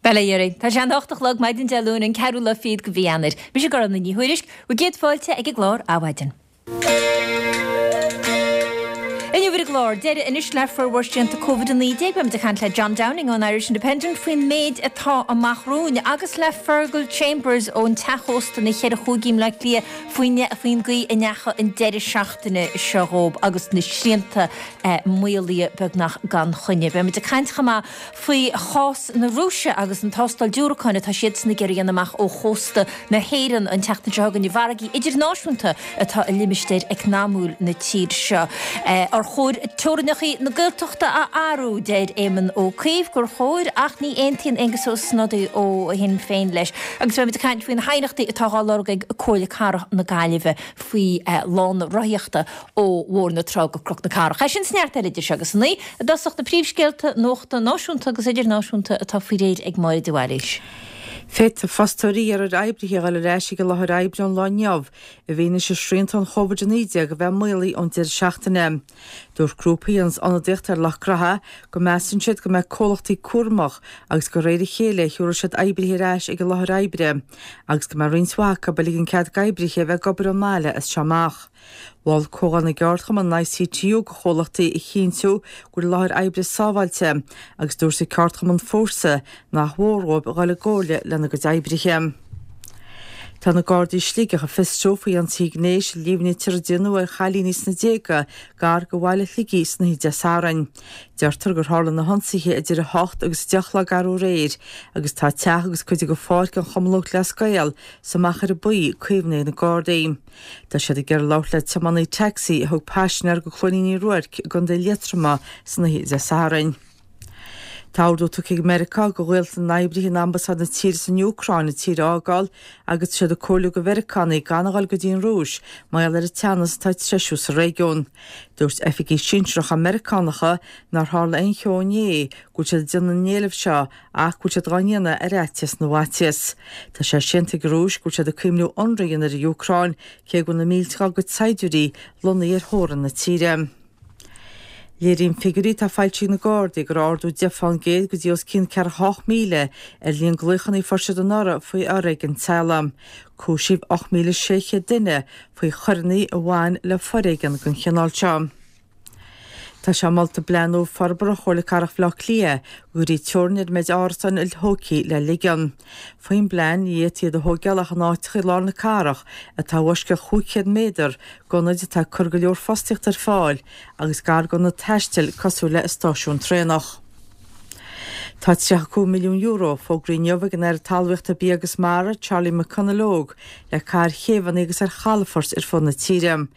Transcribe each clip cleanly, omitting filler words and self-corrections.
Bail ó Dhia oraibh. Tá sé an 8 a chlog maidin Dé Luain an ceathrú lá fichead de mhí Eanáir. Mise Gormfhlaith Ní Thuairisg, bhur gcéad fáilte ag an gclár Adhmhaidin. Inniu ar an gclár, deireadh anois le formhór srianta Covid-19. Beimid ag caint le John Downing ón Irish Independent faoin méid atá amach romhainn agus le Fergal Chambers ón teach ósta na Cheithre Chúigí i mBleá Cliath faoin faoin gcaoi a ndeachaigh an deireadh seachtaine seo dhóibh agus na srianta maolaithe beagnach gan choinne. Beimid ag caint chomh maith faoi chás na Rúise agus an tástáil diúracáin atá siadsan ag iarraidh a dhéanamh amach ó chósta na hÉireann an tseachtain seo chugainn i bhfarraigí idirnáisiúnta atá i limistéar eacnamúil na tíre seo. Ar chóir teorainneacha na Gaeltachta a athrú? Deir Éamon Ó Cuív gur chóir ach ní aontaíonn Aengus Ó Snodaigh ó Shinn Féin leis. Agus beimid ag caint faoi na haighneachtaí atá á lorg ag Comhairle Cathrach na Gaillimhe faoi lána rothaíochta ó Bhóthar na Trá go Cnoc na Cathrach. É sin is neart eile idir seo agus a 9, i dtosach na príomhscéalta nuachta náisiúnta agus idirnáisiúnta atá faoi réir ag Máire de Bhailís. Féadfaidh fostóirí iarraidh ar oibrithe a dhul ar ais ag an láthair oibre ón lá inniu, i bhfianaise srianta an Chóvid-19 a bheith maolaithe ón deireadh seachtaine. Dúirt grúpa a dhéanas ionadaíocht ar lucht gnoithe go measann siad go mbeidh comhlachtaí cúramach agus gur de réir a chéile a thiúrfaidh siad oibrithe ar ais ag an láthair oibre agus go mbeidh roinnt mhaith acu ag ligean cead d'oibrithe a bheith ag obair ón mbaile as seo amach. Mhol Comhdháil na gCeardchumann, an ICTU, do chomhlachtaí a chinntiú go bhfuil an láthair oibre sábháilte agus dúirt an ceardchumann Fórsa nach mhór dhóibh a dhul i gcomhairle lena gcuid oibrithe. Tá na Gardaí i Sligeach ag fiosrú faoi ionsaithe gnéis a líomhnaítear a déanadh ar chailíní sna déaga gar do bhaile Shligigh san oíche Dé Sathairn. Deirtear gur tharla na hionsaithe idir 8 agus 10 a chlog arú aréir agus tá teach agus cuid de pháirc an Chumann Lúthchleas Gael sa Machaire Buí caomhnaithe ag na Gardaí. Tá siad ag iarraidh labhairt le tiománaí tacsaí a thug paisinéir go Cluainín Uí Ruairc i gContae Liatroma san oíche Dé Sathairn. Tá ordú tugtha ag Meiriceá do ghaolta na n-oibrithe in ambasáid na tíre san Úcráin an tír a fhágáil agus tá siad ag comhairliú do Mheiriceánaigh gan a dhul go dtí an Rúis mar gheall ar an teannas atá ag treisiú sa réigiún. Dúirt oifigigh sinsearacha Meiriceánacha nár tharla aon cheo inné go bhfuil siad ag déanamh na n-éileamh seo ach go bhfuil siad dhá ndéanamh ar fhaitíos na bhfaitíos. Tá sé séanta ag an Rúis go bhfuil siad ag cuimhniú ionradh a dhéanamh ar an Úcráin, cé go bhfuil na mílte dá gcuid saighdiúirí lonnaithe ar theorainn na tíre. Léiríonn figiúirí atá foilsithe ag na Gardaí go raibh ardú 10 fán gcéad go dtí os cionn 48,000 ar líon glaochanna a fuair siad anuraidh faoi fhoréigean teaghlaigh. Cúisíodh 8,600 duine faoi choireanna a bhain le foréigean den chineál seo. Tá sé molta i bplean nua forbartha Chomhairle Cathrach Bhaile Átha Cliath go gcuirfí teorainn ar an méid árasán iltógtha le ligean. Faoin bplean, ní fhéadfaí iad a thóigeáil ach in áiteacha i lár na cathrach atá i bhfoisceacht 500 méadar d'ionaid atá ag cur go leor fostaíochta ar fáil agus gar d'ionaid taistil cosúil le stáisiún traenach. Tá €35 milliún fógraithe inniu ag an Aire Talmhaíochta, Bia agus Mara, Charlie McConalogue, le caitheamh ar chéibheanna agus ar chalafoirt ar fud na tíre.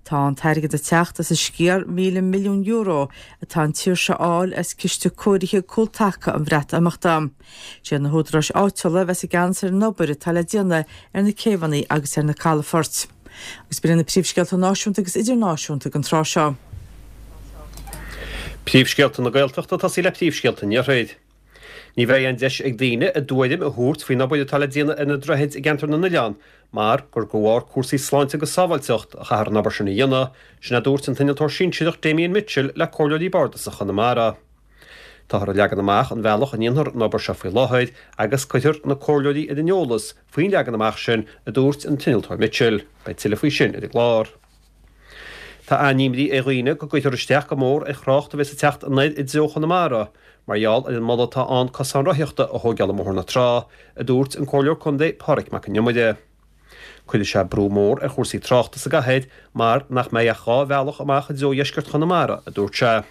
Tá an t-airgead ag teacht as an sciar €1,000 milliún atá an tír seo a fháil as Ciste Cóirithe Cúltaca an Bhreatimeachta. Siad na húdaráis áitiúla a bheas i gceannas ar an obair atá le déanamh ar na céibheanna agus ar na calafoirt. Agus b'in iad na príomhscéalta náisiúnta agus idirnáisiúnta don tráth seo. Príomhscéalta na Gaeltachta ag tosaí le príomhscéalta an Iarthair. Ní bheidh aon deis ag daoine a dtuairim a thabhairt faoin obair atá le déanamh ar na droichid i gceantar na nOileán mar gur de bharr cúrsaí sláinte agus sábháilteacht a chaithfear an obair sin a dhéanamh, sin a dúirt an t-innealtóir sinsearach Damien Mitchell le Comhairleoirí Bardasach Chonamara. Táthar ag leagan amach an bhealach a ndéanfar an obair seo faoi láthair agus cuirfear na comhairleoirí ar an eolas faoin leagan amach sin, a dúirt an t-innealtóir Mitchell. Beidh tuilleadh faoi sin ar an gclár. Tá an-imní ar dhaoine go gcuirfear isteach go mór ar thrácht a bheas ag teacht anoir i dtreo Chonamara mar gheall ar an moladh atá ann cosán rothaíochta a thóigeáil i mBóthar na Trá, a dúirt an Comhairleoir Contae Pádraig Mac an Iomaire. Cuirfidh sé brú mór ar chúrsaí tráchta sa gcathair mar nach mbeidh ach 2 bhealach amach i dtreo dheisceart Chonamara, a dúirt sé.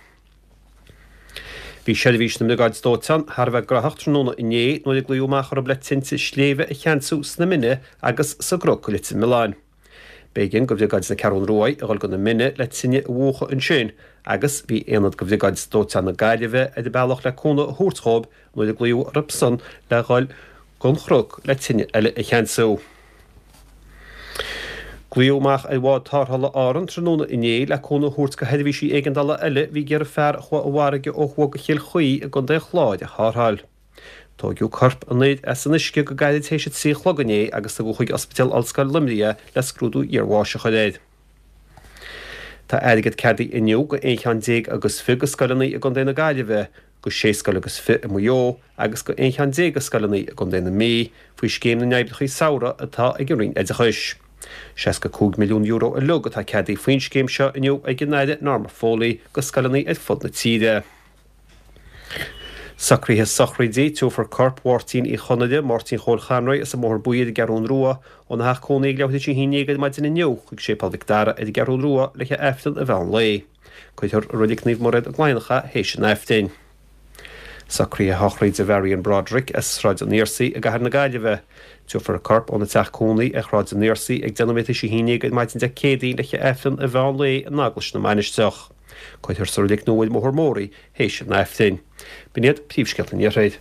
Bhí seirbhís na mBriogáid Dóiteáin thar a bheith graitheach tráthnóna inné nuair a glaodh amach orthu le tinte sléibhe a cheansú sna Mine agus sa gCnoc i Leitir Mealláin. B'éigean go Bhriogáid na Ceathrún Ruaidh a dhul go na Mine le tine a mhúchadh ansin agus bhí aonad go Bhriogáid Dóiteáin na Gaillimhe ar an bealach le cúnamh a thabhairt dhóibh nuair a glaodh orthusan le dhul gon Chnoc le tine eile a cheansú. Glaodh amach ar bhád tarrthála Árann tráthnóna inné le cúnamh a thabhairt go sheirbhísí éigeandála eile a bhí ag iarraidh fear a chuaigh i bhfarraige ó thuaidh go Chill Chaoi i gContae an Chláir a tharrtháil. Tóigeadh corp an fhir as an uisce go gairid théis a 3 a chlog inné agus tugadh chuig Ospidéal Ollscoil Luimnigh é le scrúdú iarbháis a chur air. Tá airgead ceadaithe inniu go 11 cheann agus fiche go scoileanna i gContae na Gaillimhe. go sé scoil agus fi i Maigh Eo agus go 11 cheann de scoileanna i gContae na Mí faoi Scéim na nOibreacha Samhraidh atá ag an Roinn Oideachais. €65 milliún uilig atá ceadaithe faoin scéim seo inniu ag an Aire Norma Foley go scoileanna ar fud na tíre. Socruithe sochraide, Tabharfar corp Mháirtín Uí Chonaire, Máirtín Chóil Chonroy as an mBóthar Buí ar an gCeathrún Rua, óna theach cónaí ag leathuair tar éis a haon déag ar maidin inniu chuig Séipéal Mhic Dara ar an gCeathrún Rua le haghaidh Aifreann an mheán lae. Cuirfear i Reilig Naomh Mairéad i gCladhnach é théis an Aifrinn. Socruithe sochraide Mharion Broderick as Sráid an Fhiarsaigh i gCathair na Gaillimhe. Tabharfar a corp óna teach cónaí ar Shráid an Fhiarsaigh ag 10 nóiméad théis 11 ar maidin Dé Céadaoin le haghaidh Aifreann an mheán lae in Eaglais na Mainistreach. Cuirfear sa reilig nua ar an mBóthar Mór í théis an Aifrinn. B'in iad príomhscéalta an Iarthair.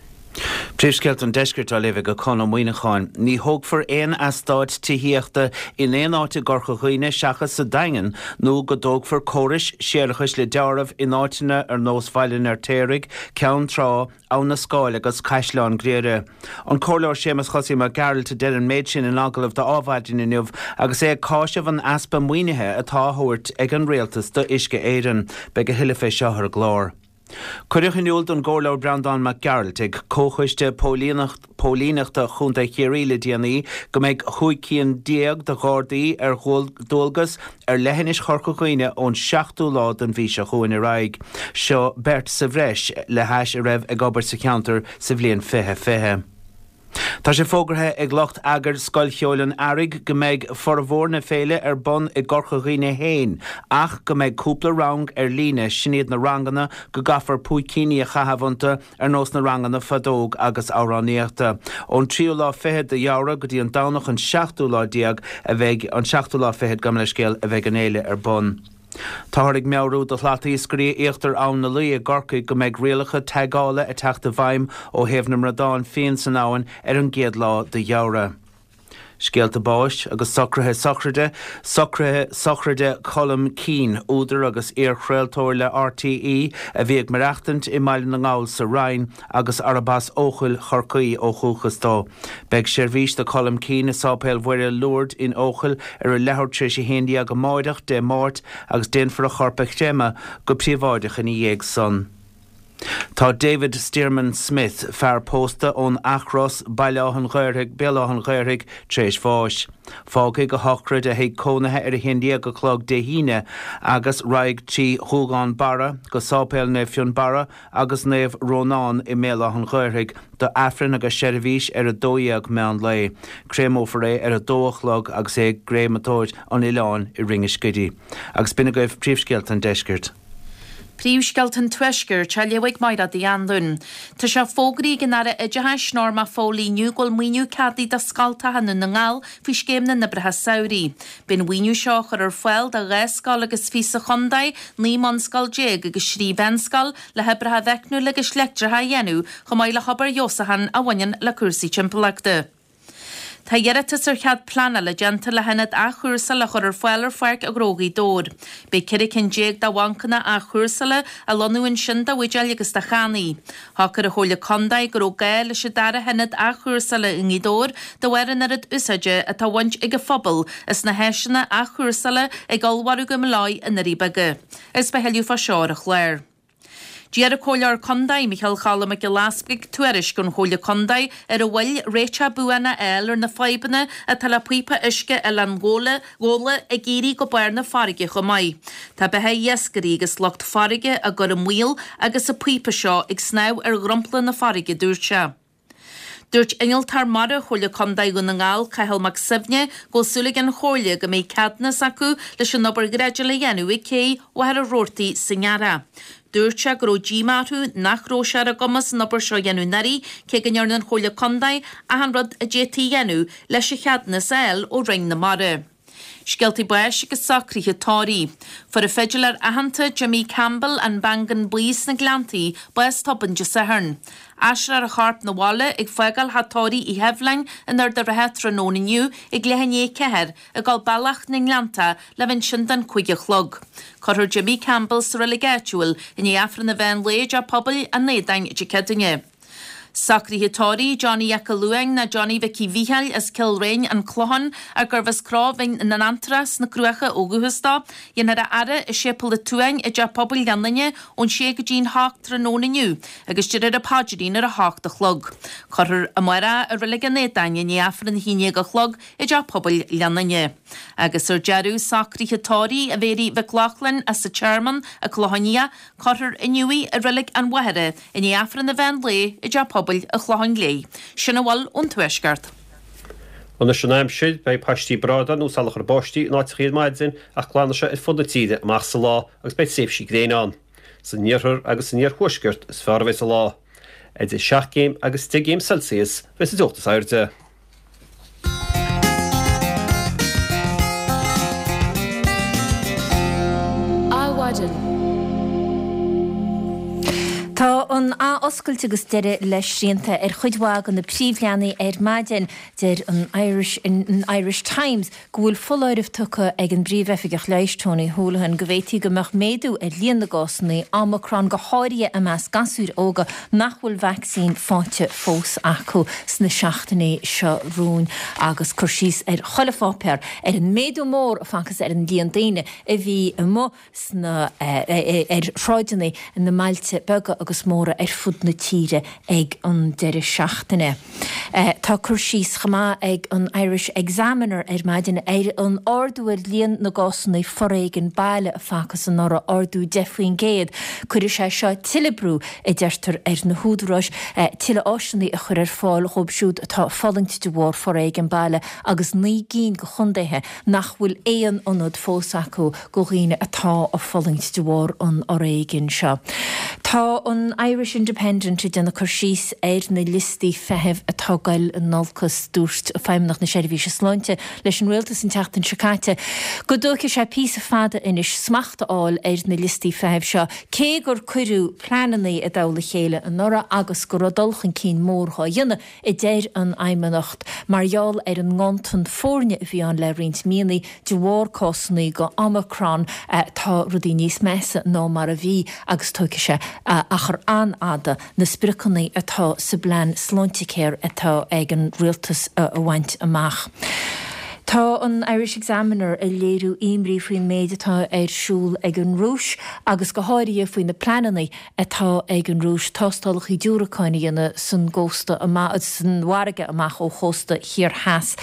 Príomhscéalta an Deiscirt á léamh ag Conn Ó Muíneacháin. Ní thógfar aon eastát tithíochta in aon áit i gCorca Dhuibhne seachas sa Daingean nó go dtógfar córais séarachais le deáramh in áiteanna ar nós Bhaile an Fheirtéaraigh, Ceann Trá, Abha na Scáil agus Caisleán Ghriaire. An Comhairleoir Séamus Chosaí Mac Gearailt a deir an méid sin in agallamh do Adhmhaidin inniu agus é ag cáiseamh an easpa maoinithe atá á thabhairt ag an Rialtas do Uisce Éireann. Beidh a thuilleadh fé seo ar an gclár. Cuireadh in iúl don gComhairleoir Breandán Mac Gearailt ag Comhchoiste Póilíneachta Chontae Chiarraí le déanaí go mbeidh 15 cinn de Ghardaí ar dualgas ar leithinis Chorca Dhuibhne ón seachtú lá den mhí seo chugainn ar aghaidh. Seo beirt sa bhreis le hais a raibh ag obair sa cheantar sa bhliain 2020. Tá sé fógartha ag lucht eagair Scoil Cheoil an Earraigh go mbeidh formhór na féile ar bun i gCorca Dhuibhne féin ach go mbeidh cúpla rang ar líne, sin iad na ranganna go gcaithfear púicíní a chaitheamh iontu ar nós na ranganna feadóg agus amhránaíochta. Ón tríú lá fichead de Fheabhra go dtí an Domhnach an seachtú lá déag a bheidh, an seachtú lá fichead, gabh mo leithscéal, a bheidh an fhéile ar bun. Táthar ag meabhrú do shlatiascairí íochtar Abhainn na Laoi i gCorcaigh go mbeidh rialacha teagála ag teacht i bhfeidhm ó thaobh na mbradán fiáin san abhainn ar an gcéad lá de Fheabhra. Scéalta báis agus socruithe sochraide, Socruithe sochraide Colm Keane, údar agus iar-chraoltóir le RTÉ a bhí ag maireachtaint i mBaile na nGall sa Rinn agus arb as Eochaill Chorcaí ó dhúchas dó. Beidh seirbhís do Colm Keane i Sáipéal Mhuire Lourdes in Eochaill ar a leathuair tar éis 11 amáireach, Dé Máirt, agus déanfar a chorp a chreimeadh go príobháideach ina dhiaidh san. Tá David Stearman Smith, fear pósta ón Eachros, Baile Átha an Ghaorthaidh, Béal Átha an Ghaorthaidh, tar éis bháis. Fágfaidh a shochraid a thigh cónaithe ar 11 a chlog Dé hAoine agus raghaidh trí Ghuagán Barra go Sáipéal Naomh Fionnbarra agus Naomh Rónán i mBéal Átha an Ghaorthaidh do Aifreann agus seirbhís ar 12 meán lae. Créamófar é ar 2 a chlog agus é i gCréamatóir an Oileáin i Rinn an Scidígh. Agus b'in agaibh príomhscéalta an deiscirt. Príomhscéalta an Tuaiscirt á léamh ag Mairéad Uí Anluain. Tá sé fógraithe ag an Aire Oideachais, Norma Foley inniu go bhfuil maoiniú ceadaithe do scoltacha i nDún na nGall faoi Scéim na nOibreacha Samhraidh. Beidh an mhaoiniú seo á chur ar fáil do 12 scoil agus fiche sa chontae, 19 mbunscoil agus 3 mheánscoil, le hoibreacha meicniúla agus leictreacha a dhéanamh chomh maith le hobair fheabhsúcháin a bhaineann le cúrsaí timpeallachta. Tá iarratas ar chead pleanála déanta le hionad athchúrsála a chur ar fáil ar Pháirc Ghnó Ghaoth Dobhair. Beidh 14 cinn de bhancanna athchúrsála á lonnú ansin do bhuidéil agus do channaí. Shocair an Chomhairle Contae go raibh gá leis an dara hionad athchúrsála i nGaoth Dobhair de bharr an oiread úsáide atá á bhaint ag an phobal as na háiseanna athchúrsála ag ollmhargadh na Milleáí i nDoirí Beaga. Agus beidh a thuilleadh fá seo ar an chlár. D'iarr an Comhairleoir Contae, Micheál Choilm Mac Giolla Easbuig, tuairisc ón Chomhairle Contae ar an mhoill réiteach buan a fháil ar na fadhbanna atá le píopa uisce Oileán Ghabhla ag éirí go barr na farraige chomh maith. Tá beatha iascairí agus lucht farraige á gcur i mbaol agus an píopa seo ag snámh ar dhromchla na farraige, dúirt sé. Dúirt Innealtóir Mara Chomhairle Contae Dhún na nGall, Cathal Mac Suibhne, go bhfuil súil ag an Chomhairle go mbeidh ceadúnas acu leis an obair dhreideála a dhéanamh ag cé Mhachaire Rabhartaigh sa nGearrthach. Dúirt sé go raibh díomá orthu nach raibh sé ar a gcumas an obair seo a dhéanamh anuraidh cé go ndearna an Chomhairle Contae achan rud a d'fhéadfaí a dhéanamh leis an cheadúnas a fháil ó Roinn na Mara. Scéaltaí báis agus socruithe tórraimh. Fuair an fidiléir aitheanta Jimmy Campbell, An Beangán Buí sna Gleanntaí, bás tobann Dé Sathairn. Aistreofar a chorp 'na bhaile ag fágáil theach tórraimh Uí Sheibhleáin in Ard a' Rátha tráthnóna inniu ag leath i ndiaidh 4, ag dul bealach na nGleanntach le bheith ansin don 5 a chlog. Cuirfear Jimmy Campbell sa reilig áitiúil i ndiaidh Aifreann an mheán lae i dTeach Pobail an Aodáin Dé Céadaoine. Socruithe tórraimh Johnny 'Eac a' Luain nó Johnny Mhicí Mhícheáil as Cill Réin, An Clochán, ar gurbh as Cró Bhinn na nAntrach sna Cruacha ó dhúchas dó. Dhéanfar a fhaire i Séipéal an tSuain i dTeach Pobail Ghleann Fhinne ón sé go dtí'n hocht tráthnóna inniu agus déarfar an paidrín ar a hocht a chlog. Cuirfear amárach i Reilig an Éadáin i ndiaidh Aifreann a haon dhéag a chlog i dTeach Pobail Ghleann Fhinne. Agus ar deireadh, socruithe tórraimh a Mhéirí Mhic Lochlainn as an Tearmann, An Clochán Liath, Cuirfear inniu í i Reilig an Mhachaire i ndiaidh Aifreann an mheán lae i dTeach Pobail an Chlocháin Léith. Sin a bhfuil ón Tuaisceart. Anois an aimsir, beidh paistí brádáin nó salachar báistí in áiteachaí ar maidin ach glanfaidh sé ar fud na tíre amach sa lá agus beidh tréimhsí gréine ann. San iarthar agus san iarthuaisceart is fearr a bheas an lá. Idir 7 gcéim agus 10 gcéim Celsius a bheas an teocht is airde. Adhmhaidin. Tá an ath-oscailt agus deireadh le srianta ar chuid mhaith de na príomhleanaí ar maidin. Deir an Irish an Irish Times go bhfuil foláireamh tugtha ag an bPríomh-Oifigeach Leighis Tony Holohan go bhféadfaí go mbeadh méadú ar líon na gcásanna Omicron, go háirithe i measc gasúir óga nach bhfuil vacsaín faighte fós acu sna seachtainí seo romhainn agus cur síos ar chuile pháipéar ar an méadú mór a facthas ar an líon daoine a bhí amuigh sna ar shráideanna na mbailte beaga agus móra ar fud na tíre ag an deireadh seachtaine. Tá cur síos chomh maith ag an Irish Examiner ar maidin ar an ardú ar líon na gcásanna foréigin baile a facthas anuraidh, ardú 10%. Cuirfidh sé seo tuilleadh brú, a deirtear, ar na húdaráis tuilleadh áiseanna a chur ar fáil dhóibh siúd atá ag fulaingt de bharr foréigean baile agus 9 gcinn de chontaetha nach bhfuil aon ionad fós acu do dhaoine atá ag fulaingt de bharr an fhoréigin seo. Tá an Irish Independent ag déanamh cur síos ar na liostaí feithimh atá ag goil in olcas. Dúirt Feidhmeannacht na Seirbhíse Sláinte leis an Rialtas an tseachtain seo caite go dtógfaidh sé píosa fada anois smacht a fháil ar na liostaí feithimh seo, cé gur cuireadh pleananna i dtoll a chéile anuraidh agus go raibh dul chun cinn mór dhá dhéanamh. a deir an Fheidhmeannacht, mar gheall ar an nganntan foirne a bhí ann le roinnt míonna de bharr cásanna de Omicron, tá rudaí níos measa ná mar a bhí agus tógfaidh sé achar an-fhada na spriocanna atá sa bplean Sláintecare atá ag an Rialtas a bhaint amach. Tá an Irish Examiner ag léiriú imní faoin méid atá ar siúl ag an Rúis agus go háirithe faoi na pleananna atá ag an Rúis tástálacha diúracáin a dhéanamh san gcósta amach, san bhfarraige amach ó chósta thiar theas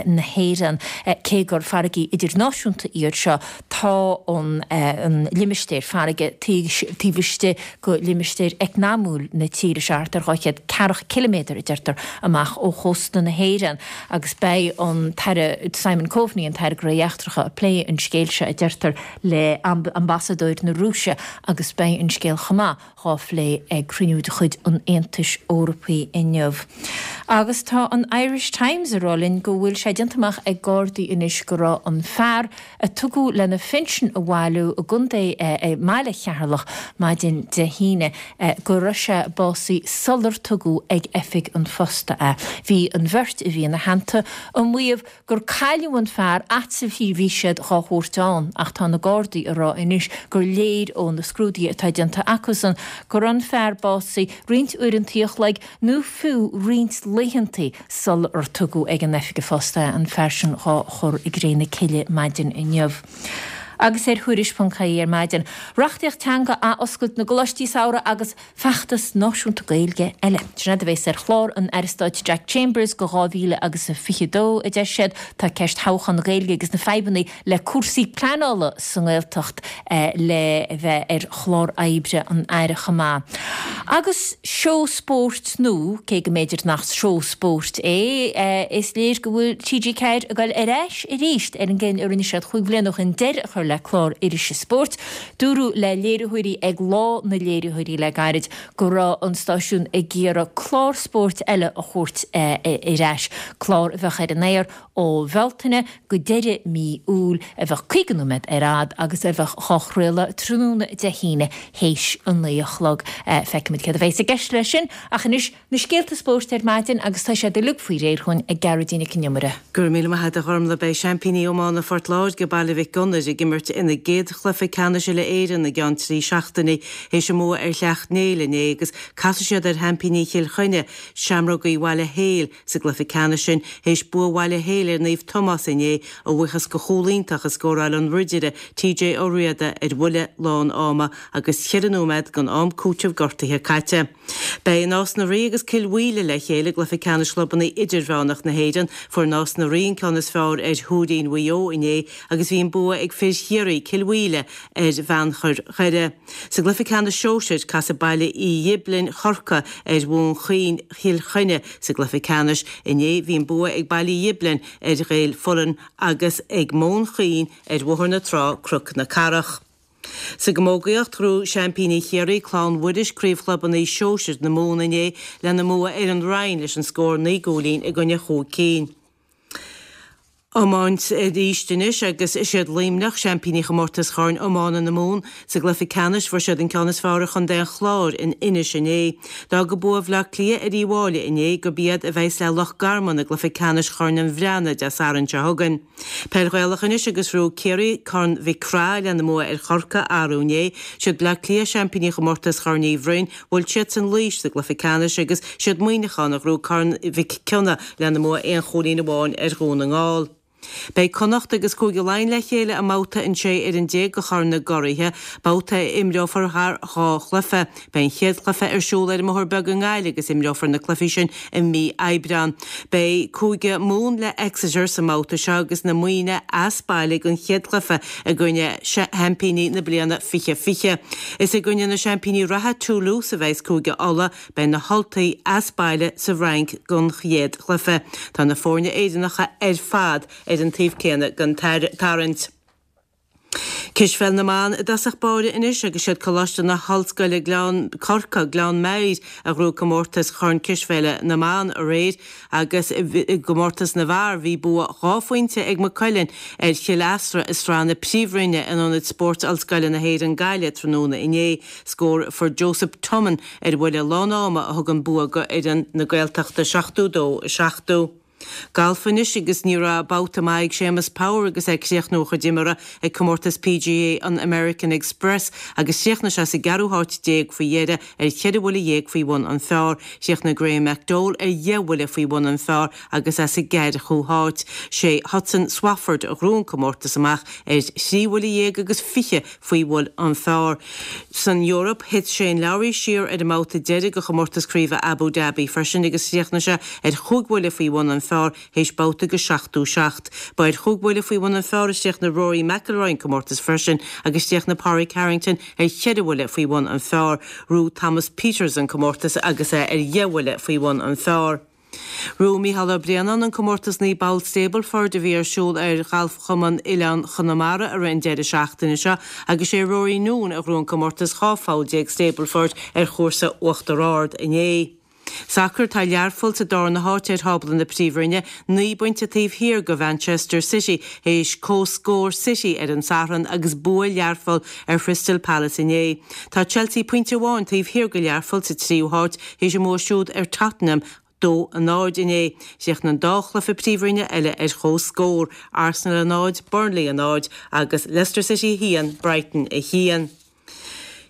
na hÉireann. Cé gur farraigí idirnáisiúnta iad seo, tá an limistéar farraige taobh istigh de limistéar eacnamúil na tíre seo, thart ar 200 ceathracha ciliméadar, a deirtear, amach ó chósta na hÉireann. Agus beidh an tAire Simon Coveney, an tAire Gnóthaí Eachtracha, ag plé an scéil seo, a deirtear, le Ambasadóir na Rúise agus beidh an scéal chomh maith dhá phlé ag cruinniú de chuid an Aontais Eorpaigh inniu. Agus tá an Irish Times ag rá linn go bhfuil sé déanta amach ag Gardaí anois go raibh an fear a tugadh lena phinsean a bhailiú i gcontae i mbaile Cheatharlach maidin Dé hAoine go raibh sé básaithe sular tugadh ag oifig an phosta é. Bhí an bheirt a bhí ina theannta ag maíomh gur cailleadh an fear fhad 's a bhí siad dhá thabhairt ann ach tá na Gardaí ag rá anois gur léir ó na scrúduithe atá déanta acusan go raibh an fear básaithe roinnt uaireantaí a chloig nó fiú roinnt laethantaí sular tugadh ag an oifig an phosta é, an fear sin dhá chur i gcré na cille maidin inniu. Agus ar Thuairisc.ie ar maidin, reachtaíocht teanga, athoscailt na gcoláistí samhraidh agus. Feachtas náisiúnta Gaeilge eile. Sin é a bheas ar chlár an Aire Stáit Jack Chambers go 2022, a deir siad. Tá ceist thodhchá na Gaeilge agus na fadhbanna le cúrsaí pleanála sa nGaeltacht le bheith ar chlár oibre an Aire chomh maith. Agus seó spóirt nua, cé go mb'fhéidir nach seó spóirt é, is léir go bhfuil TG4 ag dul ar ais arís ar an gcinneadh a rinne siad chúig bhliana ó shin deireadh a chur le clár irise spóirt. Dúradh le léiritheoirí ag Lá na Léiritheoirí le gairid go raibh an stáisiún ag iarraidh clár spóirt eile a thabhairt ar ais, clár a bheadh ar an aer ó Bhealtaine go deireadh mí Iúil, a bheadh 50 nóiméad ar fhad agus a bheadh dhá chraoladh tráthnóna Dé hAoine théis a naoi a chlog. Feicfimid céard a bheas i gceist leis sin ach anois Na scéalta spóirt ar maidin agus tá siad uilig faoi réir dhúinn ag Gearóidín Nic an Iomaire. Go raibh míle maith agat a Ghormlaith. Beidh seaimpíní iomána Phort Láirge, Baile Mhic Gonair, ag imirt. imirt ina gcéad chluiche ceannais uile-Éireann i gceann 3 seachtainí théis a mbua ar Shleacht Néill inné agus casfaidh siad ar sheaimpíní Chill Chainnigh, Seamrógaí Bhaile Héil, sa gcluiche ceannais sin théis bua Bhaile Héil ar Naomh Tomás inné a bhuíochas go chúl iontach a scóráil an Ridire TJ Ó Riada ar bhuille lán ama agus cheithre nóiméad den am cúitimh gortaithe caite. Beidh Nás na Rí agus Cill Mhaoile le chéile i gcluiche ceannais chlubanna idirmheánach na hÉireann. Fuair Nás na Rí an ceann is fearr ar Thuairín Mhaigh Eo inné agus bhí an bua ag fir Chiarraí, Cill Mhaoile, ar Bheannchar Dhoire. Sa gcluiche ceannais sóisir, casfaidh Baile Uí Ghiblin, Chorcaí, ar Mhóin Chaoin, Chill Chainnigh. Sa gcluiche ceannais inné bhí an bua ag Baile Uí Ghiblin ar Ghaeil Fullen agus ag Móin Chaoin ar Bhóthar na Trá, Cnoc na Cathrach. Sa gcamógaíocht, ghnóthaigh seaimpíní Chiarraí, Clann Mhuiris, Craobh Chlubanna Sóisir na Mumhan inné lena mbua ar an Rinn leis an scór 9 gcúilín i gcoinne chúig cinn. Iomáint arís anois agus is iad Luimneach seaimpíní chomórtas Chorn Iomána na Mumhan. Sa gcluiche ceannais fuair siad an ceann is fearr ar chontae an Chláir in Inis inné. D'fhág bua Bhaile Átha Cliath ar Uíbh Fháilí inné gurb iad a bheas le Loch Garman i gcluiche ceannais Chorn an Bhreathnaigh Dé Sathairn seo chugainn. Peil Ghaelach anois agus ghnóthaigh Ciarraí Corn Mhic Craith lena mbua ar Chorcaigh arú inné. Siad Bleá Cliath seaimpíní chomórtas Chorn Uí Bhroin. Bhuail siadsan Laois sa gcluiche ceannais agus siad Muineachán a ghnóthaigh Corn Mhic Cionnaith lena mbua aon chúilín amháin ar Dhún na nGall. Beidh Connacht agus Cúige Laighean le chéile i mbabhta an 16 fhoireann de Chorn na gCuraithe, babhta a imreofar thar dhá chluiche. Beidh an chéad chluiche ar siúl ar an mBóthar Beag i nGaillimh agus imreofar na cluichí sin i mí Aibreán. Beidh Cúige Mumhan le Exeter sa mbabhta seo agus na Muimhnigh as baile don chéad chluiche i gcoinne sheaimpíní na bliana 2020. Is i gcoinne na seaimpíní reatha Toulouse a bheas Cúige Uladh, beidh na hUltaigh as baile sa bhFrainc don chéad chluiche. Tá na foirne Éireannacha ar fad ar an taobh céanna den tarraingt. Cispheil na mban i dtosach báire anois agus siad Coláiste na hOllscoile Gleann, Corcaigh, Gleann Maghair a ghnóthaigh comórtas Chorn Cispheile na mBan aréir agus i gcomórtas na bhfear bhí bua dhá phointe ag Maigh Cuilinn ar Chill Easra i Sraith na Príomhroinne in Ionad Spóirt Ollscoile na hÉireann Gaillimh tráthnóna inné. Scór a fuair Joseph Tummon ar bhuille lán ama a thug an bua go fhoireann na Gaeltachta 72, 70. Galf anois agus ní raibh babhta maith ag Séamus Power agus é ag críochnú a chuid imeartha ag comórtas PGA an American Express agus chríochnaigh sé sa gceathrú háit déag faoi dheireadh ar cheithre bhuille dhéag faoi bhun an phar. Chríochnaigh Graham McDowell ar dheich bhuille faoi bhun an phar agus é sa gceathracha háit. Sé Hudson Swafford a ghnóthaigh an comórtas amach ar thrí bhuille dhéag agus fiche faoi bhun an phar. San Eoraip, thit Shane Lowry siar ar an mbabhta deiridh de chomórtas craoibhe Abu Dhabi freisin agus chríochnaigh sé ar chúig bhuille faoi bhun an phar théis babhta de 77. Ba ar chúig bhuille faoi bhun an phar a chríochnaigh Rory McIlroy an comórtas freisin agus chríochnaigh Pádraig Harrington ar cheithre bhuille faoi bhun an phar. Ghnóthaigh Thomas Pieters an comórtas agus é ar dheich bhuille faoi bhun an phar. Ghnóthaigh Mícheál Ó Braonáin an comórtas 9 bpoll Stableford a bhí ar siúl ar Ghalfchumann Oileán Chonamara i rith an deireadh seachtaine seo agus sé Rory Noone a ghnóthaigh an comórtas 12 pholl Stableford ar chúrsa Uachtar Ard inné. Sacar Tá Learpholl sa darna háit ar thábla na Príomhroinne, 9 bpointe taobh thiar de Mhanchester City théis comhscór City ar an Satharn agus bua Learpholl ar Chrystal Palace inné. Tá Chelsea pointe amháin taobh thiar de Learpholl sa tríú háit théis a mbua siúd ar Tottenham 2, 0 inné. Chríochnaigh an dá chluiche Príomhroinne eile ar comhscór, Arsenal 0, Burnley 0 agus Leicester City 1, Brighton 1.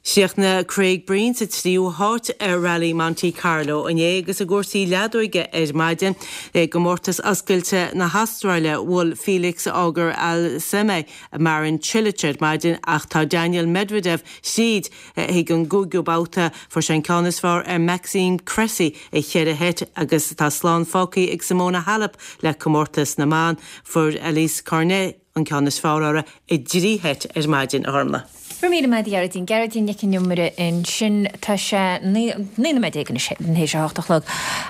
Chríochnaigh Craig Breen sa tríú háit ar Rally Monte Carlo inné agus i gcúrsaí leadóige ar maidin i gcomórtas oscailte na hAstráile bhuail Felix Auger-Aliassime Marin Cilic ar maidin ach tá Daniil Medvedev tríd chuig an gcúigiú babhta. Fuair sé an ceann is fearr ar Maxime Cressy i cheithre sheit agus tá slán fágtha ag Simona Halep le comórtas na mban. Fuair Alizé Cornet an ceann is fearr uirthi i dtrí sheit ar maidin, a Ghormlaith. Go raibh míle maith agat a Ghearóidín. Gearóidín Nic an Iomaire ansin. Tá sé 19 nóiméad anois théis a hocht a chlog.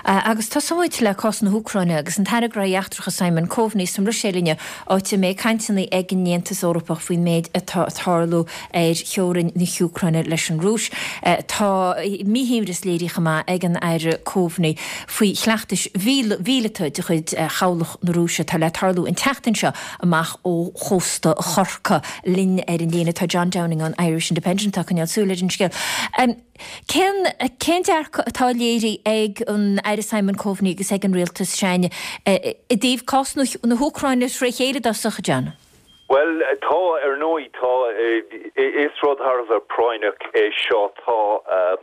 Agus tosóidh muid le cás na hÚcráine agus an tAire Gnóthaí Eachtracha Simon Coveney sa mBruiséil inniu, áit a mbeidh cainteanna ag an Aontas Eorpach faoin méid atá ag tarlú ar theorainn na hÚcráine leis an Rúis. Tá míshuaimhneas léirithe chomh maith ag an Aire Coveney faoi chleachtais mhíleata de chuid chabhlach na Rúise atá le tarlú an tseachtain seo amach ó chósta Chorcaí. Linn ar an líne tá John Downing ón Irish Independent atá ag coinneáil súil ar an scéal. Cén cén dearcadh atá léirithe ag an Aire Simon Coveney agus ag an Rialtas, Seáin, i dtaobh cás na hÚcráine tré chéile i dtosach, John? Bhuel, tá, ar ndóigh, tá. Is rud thar a bheith práinneach é seo. Tá,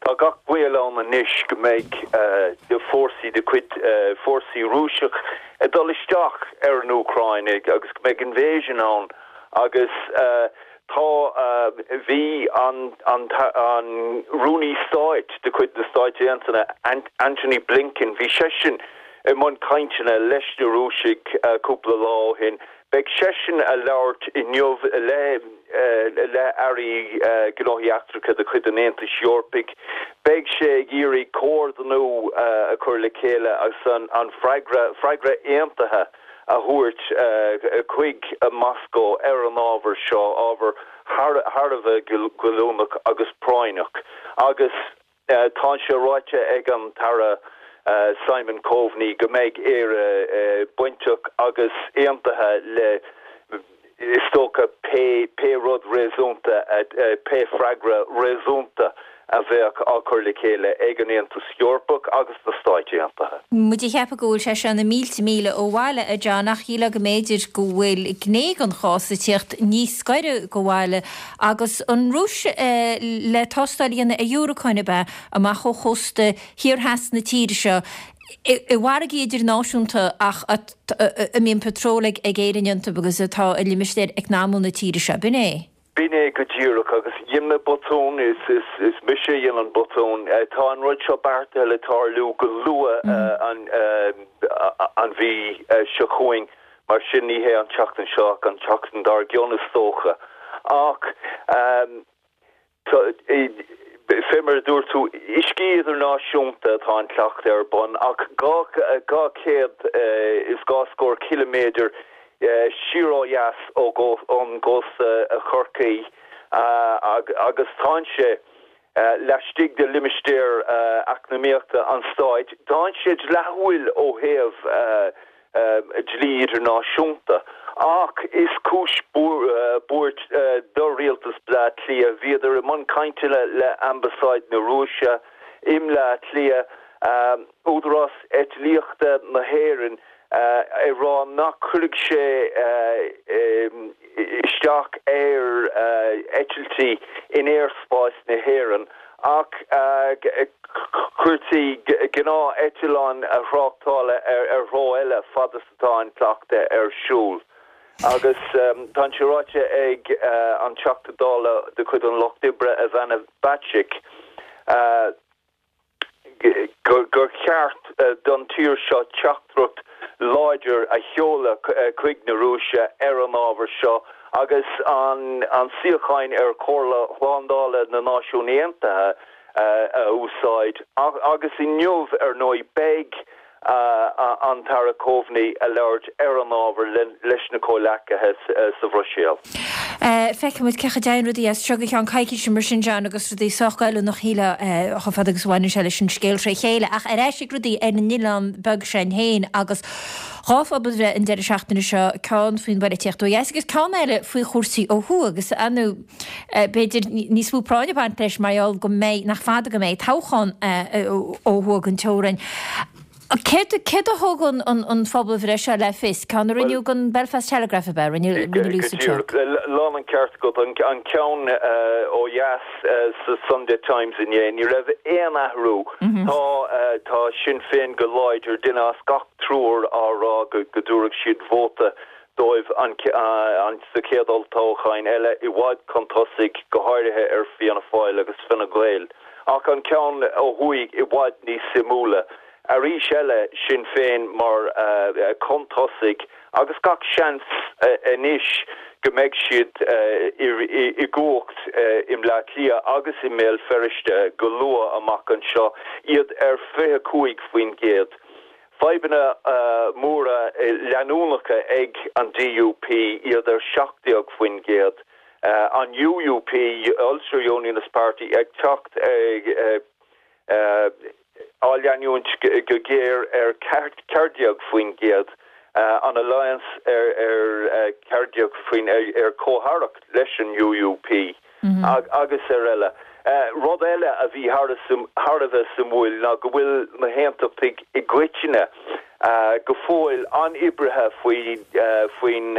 tá gach baol ann anois go mbeidh fórsaí de chuid fórsaí Rúiseach ag dul isteach ar an Úcráin agus go mbeidh invasion ann agus tá, bhí an, an, an Rúnaí Stáit de chuid na Stáit Aontaithe, Antony Blinken, bhí seisean i mbun cainteanna leis na Rúisigh cúpla lá ó shin. Beidh seisean a labhairt inniu le le airí gnóthaí eachtracha de chuid an Aontais Eorpaigh. Beidh sé ag iarraidh comhordú a chur le chéile agus an freagra freagra aontaithe a thabhairt chuig Moscó ar an ábhar seo, ábhar thar a bheith goilliúnach agus práinneach. Agus. Tá sé ráite ag an tAire Simon Coveney go mbeidh Éire bainteach agus aontaithe le, is dócha, pé rud réasúnta, pé freagra réasúnta a bheadh á chur le chéile ag an Aontas Eorpach agus na Stáit Aontaithe. Muid ag ceapadh go bhfuil sé seo na mílte míle ó bhaile, a John, ach shílfeá go mb'fhéidir go bhfuil gné den chás ag tíocht níos gaire go bhaile Agus an Rúis le tástáil a dhéanamh ar dhiúracáin ab ea, amach ó chósta thiar theas na tíre seo, i bhfarraigí idirnáisiúnta ach a mbíonn patról ag Éirinn iontu agus atá i limistéar eacnamúil na tíre seo. B'in é? B'in é go díreach. Agus dhein mé botún, is mise a dhein an botún. Tá an rud seo beartaithe le tarlú go luath an mhí seo chugainn. Mar sin, ní hé an tseachtain seo ach an tseachtain dár gcionn is dócha. Ach fé mar a dúirt tú, uiscí idirnáisiúnta atá an cleachtadh ar bun, ach 200 is dhá scór ciliméadar siar ó dheas ón gcósta Chorcaí agus tánn sé laistigh de limistéar eacnamaíochta an stáit. Tánn sé dleathúil ó thaobh dlí idirnáisiúnta, ach is cúis buairt do rialtas Bleá Cliath. Bhíodar i mbun cainteanna le Ambasáid na Rúise i mBleá Cliath, Údarás Eitlíochta na hÉireann, ag rá nach cuirfidh sé isteach ar eitiltí in aerspás na hÉireann ach chuirtí gnáth-eitleáin thráchtála ar threo eile fad is atá an cleachtadh ar siúl. Agus tá sé ráite ag an Teachta Dála de chuid an Lucht Oibre, Ivana Bacik, gur cheart don tír seo teachtaireacht láidir a sheoladh chuig na Rúise ar an ábhar seo agus an suíochán ar Chomhairle Shlándála na Náisiún Aontaithe a úsáid. Agus inniu, ar ndóigh, beidh an tAire Coveney a labhairt ar an ábhar leis na comhleacaithe sa Bhruiséil. Feicfidh muid cén chaoi a dtéann rudaí as seo go ceann coicíse mar sin, John, agus rudaí sách goilliúnach, shílfeá, chomh fada agus a bhaineann sé leis an scéal tré chéile. Ach ar ais ag rudaí ar an oileán beag sin féin agus dhá phobalbhreith an deireadh seachtaine seo, ceann faoin bpolaitíocht ó dheas agus ceann eile faoi chúrsaí ó thuaidh agus, ar ndóigh, b'fhéidir níos mó práinne ag baint leis mar gheall go mbeidh, nach fada go mbeidh toghchán ó thuaidh den teorainn. Céard a thug an phobalbhreith seo le fios? Ceann a rinneadh don Belfast Telegraph ab ea? Rinne Lucy Go díreach. Lán an ceart agat. An ceann ó dheas sa Sunday Times inné, ní raibh aon athrú. Tá tá Sinn Féin go láidir, duine as gach triúr á rá go dtabharfadh siad vóta dóibh sa chéad olltoghchán eile, i bhfad chun tosaigh, go háirithe ar Fianna Fáil agus Fine Gael. Ach an ceann ó thuaidh i bhfad níos suimiúla. Arís eile, Sinn Féin mar chun tosaigh agus gach seans anois go mbeidh siad i gcumhacht i mBleá Cliath agus i mBéal Feirste go luath amach anseo, iad ar 25%. Fadhbanna móra leanúnacha ag an DUP, iad ar 17%, an UUP, Ulster Unionist Party, ag teacht á leanúint go géar ar 14%, an Alliance ar 14 ar comh-aireacht leis an UUP. agus ar eile. Rud eile a bhí thar a bheith suimiúil ná go bhfuil na hAontachtaigh i gcoitinne. go fóill an-oibrithe faoin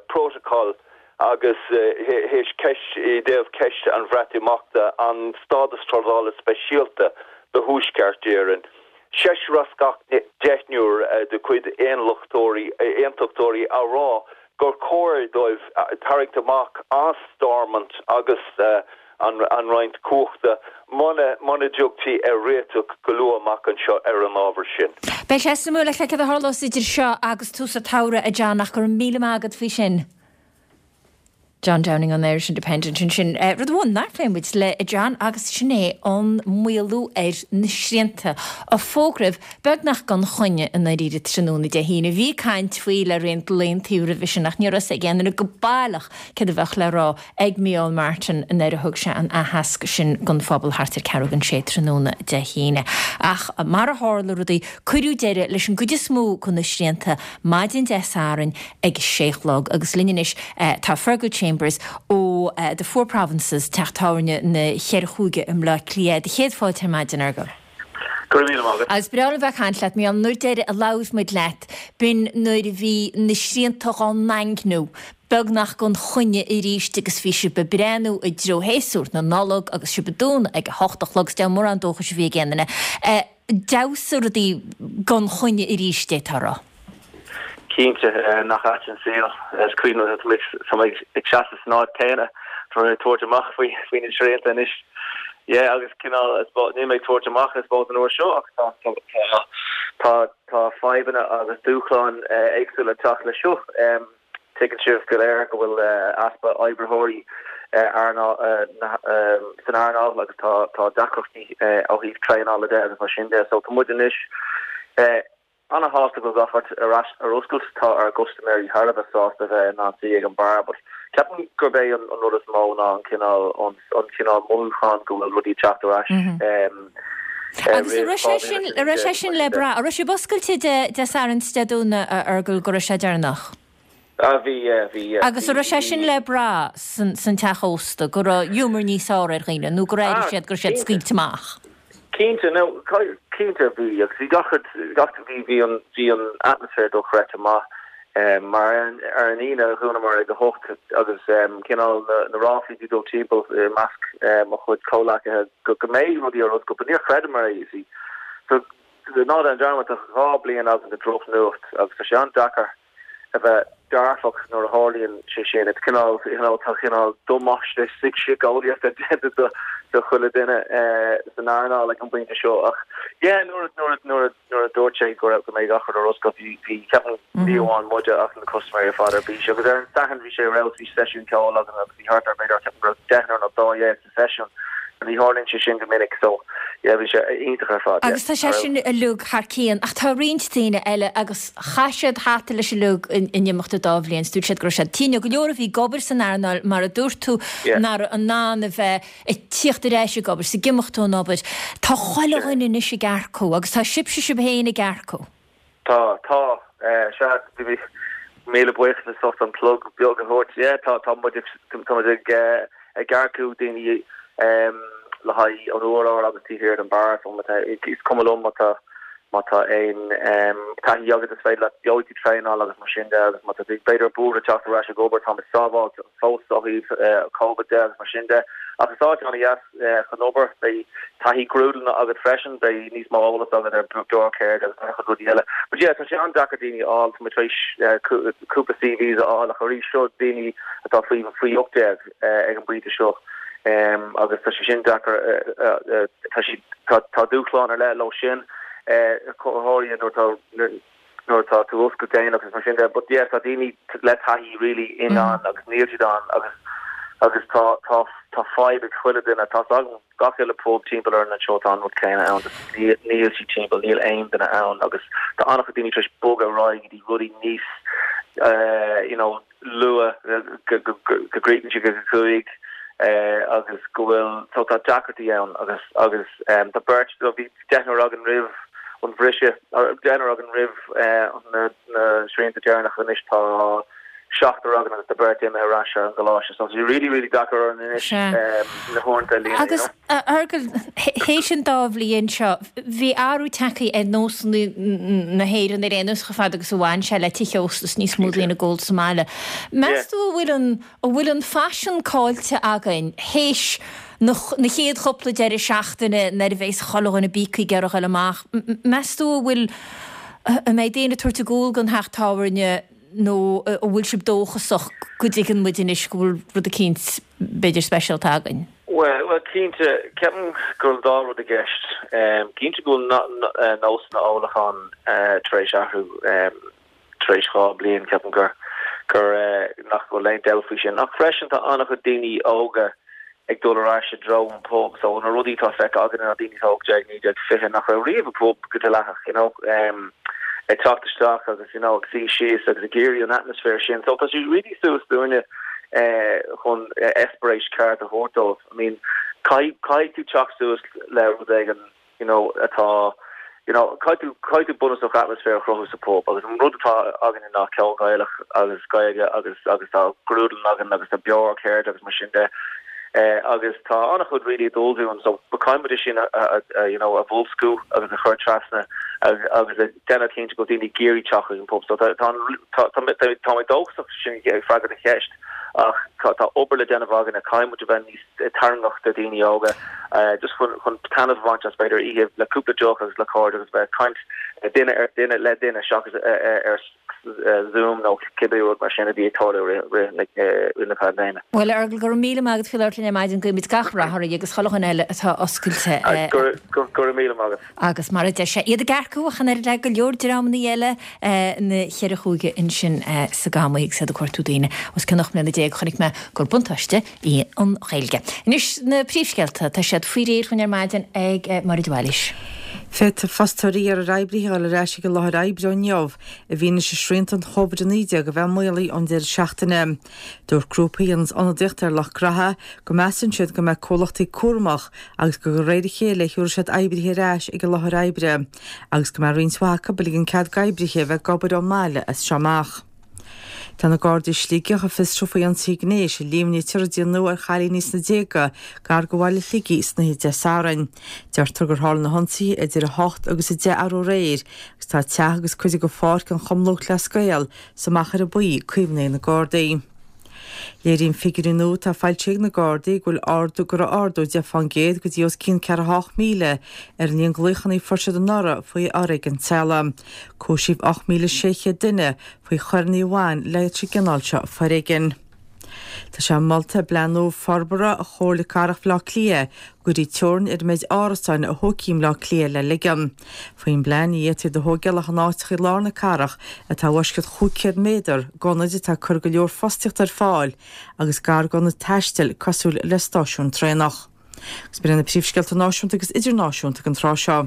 bprótacal agus théis ceist i dtaobh ceist an Bhreatimeachta, an stádas trádála speisialta do Thuaisceart Éireann. Seisear as gach deichniúr de chuid aonlachtóirí, aontachtóirí á rá gur chóir dóibh tarraingt amach as Stormont agus an roinnt cumhachta muna muna dtiocfaí ar réiteach go luath amach anseo ar an ábhar sin. Beidh sé suimiúil le feiceáil cad a tharlós idir seo agus tús an tsamhraidh, a John, ach go raibh míle maith agat faoi sin. John Downing ón Irish Independent ansin. Rud amháin nár phléigh muid le John agus sin é an maolú ar na srianta a fógraíodh beagnach gan choinne i ndáiríre tráthnóna Dé hAoine. Bhí caint faoi le roinnt laethanta roimhe sin ach ní raibh a fhios ag aon duine go baileach céard a bheadh le rá ag Micheál Martin nuair a thug sé an aitheasc sin don phobal thart ar ceathrú don sé tráthnóna Dé hAoine. Ach mar a tharla rudaí, cuireadh deireadh leis an gcuid is mó de na srianta maidin Dé Sathairn ag a sé a chlog agus linn anois tá Fergal Chambers ó The Four Provinces, teach tábhairne na Cheithre Chúige i mBleá Cliath. Do chéad fáilte ar maidin, a Fhergal. Go raibh míle maith agat. Agus breá liom bheith ag caint leat, mar an uair deiridh a labhair muid leat, b'in nuair a bhí na srianta dhá ndaingniú beagnach gan choinne arís agus bhí sibh ag breathnú i dtreo shéasúr na Nollag agus sibh ag dúnadh ag a hocht a chlog, is deamhan mórán dóchais a bhí ag aon duine. D'fheabhsaigh rudaí gan choinne arís, d'fhéadfá a rá. Cinnte, nach ait an saol. Is cuimhin liom, tá mé ag seasamh san áit céanna, tá mé ag tabhairt amach faoi faoi na srianta anois. Yeah, agus cineál, níl mé ag tabhairt amach, I suppose, an uair seo ach tá tá tá tá fadhbanna agus dúshláin éagsúla ag teacht leis seo. Tuigeann sibh go léir go bhfuil easpa oibritheoirí san earnáil agus tá tá deacrachtaí ó thaobh traenála de agus mar sin de. So tá muid anois ana-shásta go bhfuil gach rud ar ais ar oscailt. Tá ár gcustaiméirí thar a bheith sásta a bheith in ann suí ag an beár but ceapaim gurb é an rud is mó ná an cineál an cineál mothúchán go bhfuil rudaí ag teacht ar ais Agus an raibh sé sin an raibh sé sin le brath? An raibh sibh oscailte Dé Sathairn is Dé Domhnaigh a Fhergal go raibh sé deireanach? Ah bhí yeah bhí yeah. Agus an raibh sé sin le brath san san teach ósta go raibh giúmar níos fearr ar dhaoine nó gur airigh siad go raibh siad scaoilte amach? Cinnte no cinnte bhí agus bhí gach rud gach bhí bhí an bhí an atmaisféar dochreidte maith mar ar an ar an Aoine dhúnamar ag a hocht agus cineál na na ráflaí bhí dul timpeall i measc mo chuid comhleacaithe go go mbeidh rudaí ar oscailt but níor chreideamar é you see. So ná déan dearmad tá 2 bliain againn de drochnuacht agus tá sé an-deacair a bheith dearfach nuair a tharlaíonn sé sin. It's cineál, you know, tá cineál damáiste síceolaíochta déanta do do chuile duine san earnáil ag an bpointe seo ach yeah nuair a nuair a nuair a nuair a dúirt sé go raibh go mbeidh gach rud ar oscailt bhí bhí ceapaim ní amháin muide ach na custaiméirí ar fad ar bís agus ar an Satharn bhí sé ar fheabhas bhí seisiún ceoil againn agus bhí thart ar b'fhéidir ceapaim go raibh deichniúr nó 12 sa seisiún. Ní tharlaíonn sé sin go minic so yeah bhí sé iontach ar fad yeah. Agus tá sé sin uilig thar cionn ach tá roinnt daoine eile agus chaith siad hata leis uilig in imeacht an dá bhliain is dúirt siad go raibh siad tinn. Go leor a bhí ag obair san earnáil mar a dúirt tú nach raibh in ann a bheith ag tíocht ar ais ag obair is ag imeacht ón obair. Tá chuile dhuine anois ag earcú agus tá sibhse sibh féin ag earcú. Tá, tá. Sea, bhí míle buíochas as ucht an plug beag a thabhairt. Yeah, tá, tá muid ag, tá muid ag, ag earcú daoine le haghaidh an urlár agus taobh thiar den beár. So má tá, is cuma liom má tá, má tá aon taithí agat is féidir leat, gheobhaidh tú traenáil agus mar sin de agus má tá tú b'fhéidir buartha teacht ar ais ag obair, táimid sábháilte fós ó thaobh Covid de agus mar sin de. Ach is áit an-dheas chun obair. Beidh taithí grúdlanna agat freisin, beidh níos mó eolas agat ar beárcheird agus an-chuid rudaí eile. But yeah, tá sé an-deacair daoine a fháil, tá muid tar éis cúpla CVs a fháil ach arís seo daoine atá faoi faoi 18 ag an bpointe seo agus tá sé sin deacair, tá siad, tá dúshlán ar leith leo sin, go háirithe nuair atá nuair atá tú oscailt déanach agus mar sin de but yeah tá daoine le taithí really in ann agus níl siad ann agus agus tá tá tá fadhb ag chuile duine tá 's agam gach uile pub timpeall orainn anseo tá an rud céanna ann just níl níl siad timpeall níl aon duine ann agus tá an-chuid daoine tar éis bogadh ar aghaidh go dtí rudaí níos eh you know luath go go go gcríochnaíonn siad ag a cúig eh agus go bhfuil so tá deacrachtaí ann agus agus em tá beirt bhí deichniúr againn roimh an bhriseadh, deichniúr againn roimh na srianta deireanacha, anois tá. Seachtar againn agus tá beirt imithe ar ais ar an gcoláiste so tá sé really really deacair orainn anois na huaireanta a líonadh, you know. Agus a Fheargail, théis an dá bhliain seo, bhí athrú tagtha ar nósanna na hÉireann ar aon nós chomh fada agus a bhain sé le tithe ósta is níos mó daoine ag ól sa mbaile. Meas tú an bhfuil an, an bhfuil an faisean caillte againn théis na chéad chúpla deireadh seachtaine nuair a bheas chuile dhuine bíogtha ag iarraidh a ghoil amach, meas tú an bhfuil, an mbeidh daoine ag tabhairt a gcúl don theach tábhairne nó an bhfuil sibh dóchasach go dtuigeann muid anois go bhfuil rud eicínt b'fhéidir speisialta againn? Bhuel, bhuel cinnte, ceapaim go bhfuil an dá rud i gceist. Cinnte go bhfuil nósanna ólacháin tar éis athrú tar éis 2 bliain, ceapaim gur, gur, nach bhfuil aon dabht faoi sin. Ach freisin tá an-chuid daoine óga ag dul ar ais i dtreo an pub. So na rudaí atá feicthe againn ná daoine atá 18, 19, 20 nach raibh riamh i bpub go dleathach, you know, ag teacht isteach agus, you know, ag suí síos agus ag iarraidh an atmaisféar sin. So tá sé really suas dúinne chun eispéireas ceart a thabhairt dóibh. I mean, caithfidh, caithfidh tú teacht suas le rud éigin you know, atá, you know, caithfidh tú, caithfidh tú bunúsach atmaisféar a chruthú sa pub agus an rud atá againne ná ceol Gaelach agus Gaeilge agus, agus tá grúdlann againn agus tá beoir ceirde agus mar sin de eh, agus tá an-chuid really ag dul dúinn so caithfidh muid é sin a, a, a, you know, a bhoilsciú agus a chur trasna agus, agus a déanamh cinnte go bhfuil daoine ag iarraidh teacht chuig an pub so tá, tá, tá, tá, tá, tá mé dóchasach sin ag freagairt do cheist ach tá, tá obair le déanamh againne, caithfidh muid a bheith níos tarraingteach do dhaoine óga just chun chun taitneamh a bhaint as b'fhéidir oíche le cúpla deoch agus le cairde agus bheith ag caint duine ar duine le duine seachas ar Zoom nó cibé rud mar sin a bhí ag tarlú i rith na paindéime. Bhuel, a Fheargail, go raibh míle maith agat faoi labhairt linn ar maidin, guímid gach rath oraibh agus chuile dhuine eile atá oscailte. Go raibh míle maith agat. Agus mar a deir sé, iad ag earcú ach an oiread le go leor dreamanna eile na cheithre chúige ansin sa Gamaí agus iad ag cuartú daoine os cionn 18 mbliana, chonaic mé gur buntáiste í an Ghaeilge. Anois na príomhscéalta, tá siad faoi réir dhúinn ar maidin ag Máire de Bhailís. Féadfaidh fostóirí iarraidh ar oibrithe a dhul ar ais ag an láthair oibre ó inniu i bhfianaise srianta an Covid-19 a bheith maolaithe ón deireadh seachtaine. Dúirt grúpa a dhéananns ionadaíocht ar lucht graithe go measann siad go mbeidh comhlachtaí cúramach agus gur de réir a chéile a thiúrfaidh siad oibrithe ar ais ag an láthair oibre agus go mbeidh roinnt mhaith acu ag ligean cead d'oibrithe a bheith ag obair ón mbaile as seo amach. Tá na Gardaí i Sligeach ag fiosrú faoi ionsaithe gnéis a líomhnaítear a déanadh ar chailíní sna déaga gar do bhaile Shligigh san oíche Dé Sathairn. Deirtear gur tharla na hionsaithe idir 8 agus 10 arú aréir agus tá teach agus cuid de pháirc an Chumann Lúthchleas Gael sa Machaire Buí caomhnaithe ag na Gardaí. Léiríonn figiúirí nua atá foilsithe ag na Gardaí go bhfuil ardú go raibh ardú 10% go dtí os cionn 48,000 ar an líon glaochanna a fuair siad anuraidh faoi fhoréigean teaghlaigh. Cúisíodh 8,600 duine faoi choireanna a bhain leis an gcineál seo foréigin. Tá sé molta i bPlean nua Forbartha Chomhairle Cathrach Bhaile Átha Cliath go gcuirfí teorainn ar an méid árasáin a thógfaí i mBleá Cliath le ligean. Faoin bplean, ní fhéadfaí iad a thógáil ach in áiteacha i lár na cathrach atá i bhfoisceacht 500 méadar d'ionaid atá ag cur go leor fostaíochta ar fáil agus gar d'ionaid taistil cosúil le stáisiúin traenach. Agus b'in iad na príomhscéalta náisiúnta agus idirnáisiúnta ag an tráth seo.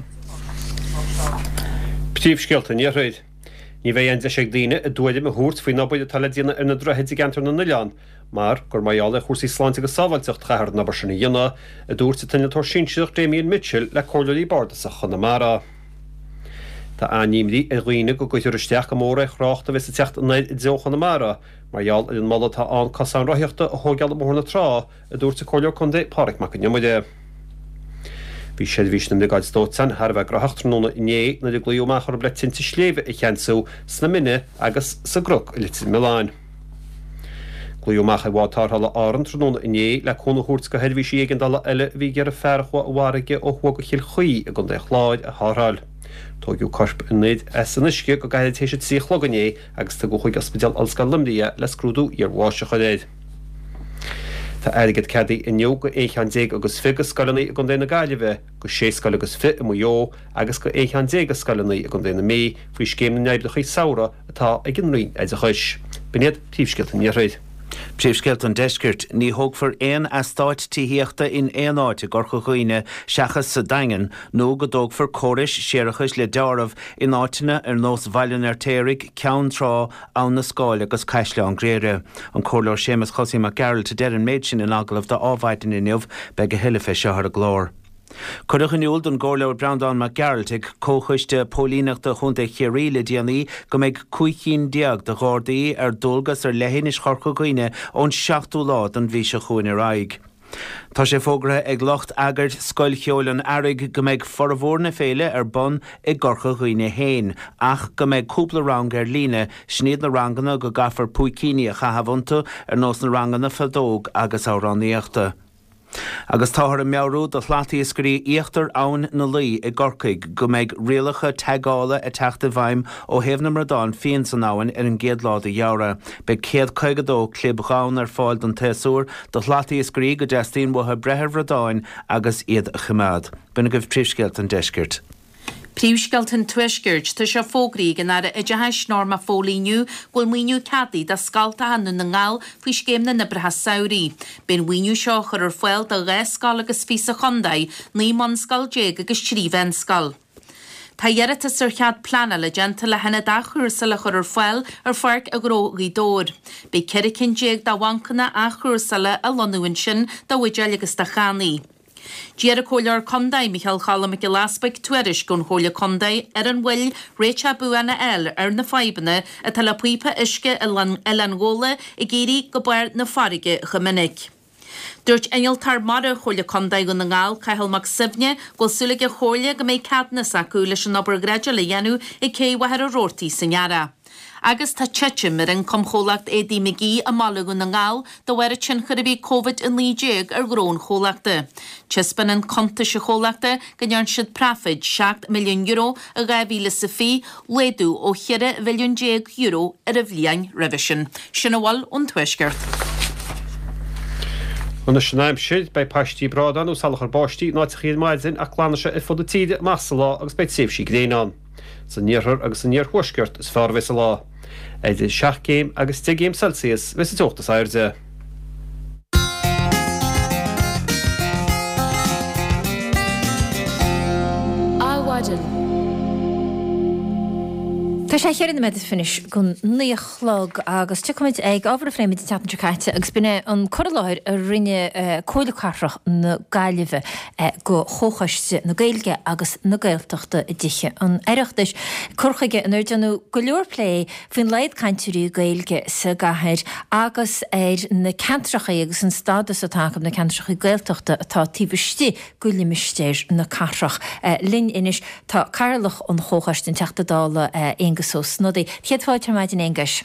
Príomhscéalta an Iarthair. Ní bheidh aon deis ag daoine a dtuairim a thabhairt faoin obair atá le déanamh ar na droichid i gceantar na n-oileán mar gur mar gheall ar chúrsaí sláinte agus sábháilteacht a chaithfear an obair sin a dhéanamh, a dúirt an t-innealtóir sinsearach Damien Mitchell le Comhairleoirí Bardasacha Chonamara. Tá an-imní ar dhaoine go gcuirfear isteach go mór ar thrácht a bheas ag teacht anoir i dtreo Chonamara mar gheall ar an moladh atá ann cosán rothaíochta a thóigeáil i mBóthar na Trá a dúirt an Comhairleoir Contae Pádraig Mac Con Iomaire. Bhí seirbhís na mBriogáid Dóiteáin thar a bheith graitheach tráthnóna inné nuair a glaodh amach orthu le tinte sléibhe a cheansú sna Mine agus sa gCnoc i Leitir Mealláin. Glaodh amach ar bhád tarrthála Árann tráthnóna inné le cúnamh a thabhairt do sheirbhísí éigeandála eile a bhí ag iarraidh fear a chuaigh i bhfarraige ó thuaidh de Chill Chaoi i gContae an Chláir a tharrtháil. Tóigeadh corp an fhir as an uisce go gairid théis a 3 a chlog inné agus tugadh chuig Ospidéal Ollscoile Luimnigh é le scrúdú iarbháis a chur air. Tá airgead ceadaithe inniu go aon cheann déag agus 20 de scoileanna i gContae na Gaillimhe, go sé scoil agus 20 i Maigh Eo agus go aon cheann déag de scoileanna i gContae na Mí faoi Scéim na nOibreacha Samhraidh atá ag an Roinn Oideachais. B'in iad príomhscéalta an Iarthair. Príomhscéalta an Deiscirt, Ní thógfar aon eastáit tithíochta in aon áit i gCorca Dhuibhne seachas sa Daingean nó go dtógfar córais séarachais le deáramh in áiteanna ar nós Bhaile an Fheirtéaraigh, Ceann Trá, Abhainn na Scáil agus Caisleán Ghriaire. An Comhairleoir Séamus Chosaí Mac Gearailt a deir an méid sin in agallamh do Adhmhaidin inniu. Beidh a thuilleadh fé seo ar an gclár. Cuireadh in iúl don gComhairleoir Breandán Mac Gearailt ag Comhchoiste Póilíneachta Chontae Chiarraí le déanaí go mbeidh 15 cinn de Ghardaí ar dualgas ar leithinis Chorca Dhuibhne ón seachtú lá den mhí seo chugainn ar aghaidh. Tá sé fógartha ag lucht eagair Scoil Cheoil an Earraigh go mbeidh formhór na féile ar bun i gCorca Dhuibhne féin ach go mbeidh cúpla rang ar líne, sin iad na ranganna go gcaithfear púicíní a chaitheamh iontu ar nós na ranganna feadóg agus amhránaíochta. Agus táthar ag meabhrú do shlatiascairí íochtar Abhainn na Laoi i gCorcaigh go mbeidh rialacha teagála ag teacht i bhfeidhm ó thaobh na mbradán fiáin san abhainn ar an gcéad lá de Fheabhra. Beidh 152 clib dhonn ar fáil don tséasúr do shlatiascairí go dteastaíonn uathu breith ar bhradáin agus iad a choimeád. B'in agaibh príomhscéalta an deiscirt. Príomhscéalta an Tuaiscirt, Tá sé fógraithe ag an Aire Oideachais Norma Foley inniu go bhfuil maoiniú ceadaithe do scoltacha i nDún na nGall faoi Scéim na nOibreacha Samhraidh. Beidh an mhaoiniú seo á chur ar fáil do 12 scoil agus fiche sa chontae, 19 mbunscoil agus 3 mheánscoil. Tá iarratas ar chead pleanála déanta le hionad athchúrsála a chur ar fáil ar Pháirc Ghnó Ghaoth Dobhair. Beidh 14 cinn de bhancanna athchúrsála á lonnú ansin do bhuidéil agus do channaí. D'iarr an Comhairleoir Contae, Micheál Choilm Mac Giolla Easbuig, tuairisc ón Chomhairle Contae ar an mhoill réiteach buan a fháil ar na fadhbanna atá le píopa uisce Oileán Ghabhla ag éirí go barr na farraige chomh minic. Dúirt Innealtóir Mara Chomhairle Contae Dhún na nGall, Cathal Mac Suibhne, go bhfuil súil ag an Chomhairle go mbeidh ceadúnas acu leis an obair dhreideála a dhéanamh ag Cé Mhachaire Rabhartaigh san earrach. Agus tá titim ar ioncam chomhlacht éadaí McGee i mbaile Dhún na nGall de bharr an tionchair a bhí ag Covid-19 ar ghnó an chomhlachta. Taispeánann cuntais an chomhlachta go ndearna siad praifid €7 milliún i 2020, laghdú ó €14 mhilliún ar an bhliain roimhe sin. Sin a bhfuil ón Tuaisceart. Anois an aimsir, beidh paistí bradán nó salachar báistí in áiteachaí ar maidin ach glanfaidh sé ar fud na tíre amach sa lá agus beidh tréimhsí gréine ann. San iarthar agus san iarthuaisceart is fearr a bheas an lá. Idir 7 gcéim agus 10 gcéim Celsius a bheas an teocht is airde. Adhmhaidin. Tá sé cheithre nóiméad is fiche don naoi a chlog agus tiocfaimid ag ábhar a phléigh muid an tseachtain seo caite agus b'in é an cur i láthair a rinne Comhairle Cathrach na Gaillimhe go Chomhchoiste na Gaeilge agus na Gaeltachta i dTithe an Oireachtais. Cur chuige inar déanadh go leor plé faoin laghad cainteoirí Gaeilge sa gcathair agus ar na ceantracha agus an stádas atá acu, na ceantracha Gaeltachta atá taobh istigh de limistéar na cathrach. Linn anois tá Cathaoirleach an Chomhchoiste, an Teachta Dála Aengus Ó Snodaigh. Céad fáilte ar maidin, Aonghuis.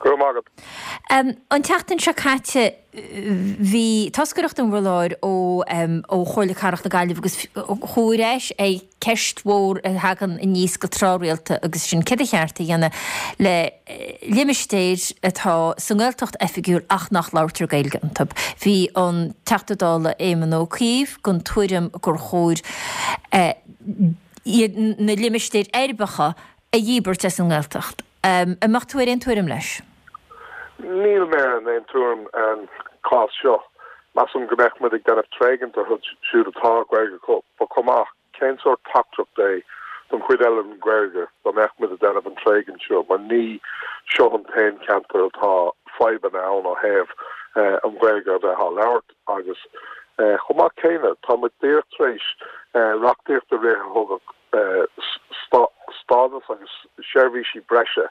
Go raibh maith agat. An tseachtain seo caite bhí toscaireacht in bhur láthair ó ó Chomhairle Cathrach na Gaillimhe agus chuaigh ar ais ar cheist mhór a thagann aníos go tráthrialta agus sin céard ba cheart a dhéanamh le limistéir atá sa nGaeltacht oifigiúil ach nach labhartar Gaeilge iontu. Bhí an Teachta Dála Éamon Ó Cuív den tuairim gur chóir na limistéir uirbeacha a dhíbirt as an nGaeltacht. An mbeadh tú ar aon tuairim leis? Níl mé ar aon tuairim ar an chás seo. Measaim go mbeadh muid ag déanamh tréigint orthu siúd atá Gaeilge acu, but chomh maith, cén sórt teachtaireacht é don chuid eile den Ghaeilge dá mbeadh muid ag déanamh an tréigint seo, mar ní seo an t-aon cheantar atá fadhbanna ann ó thaobh an Ghaeilge a bheith á labhairt agus chomh maith céanna, tá muid díreach tar éis reachtaíocht a rith a thugadh stádas agus seirbhísí breise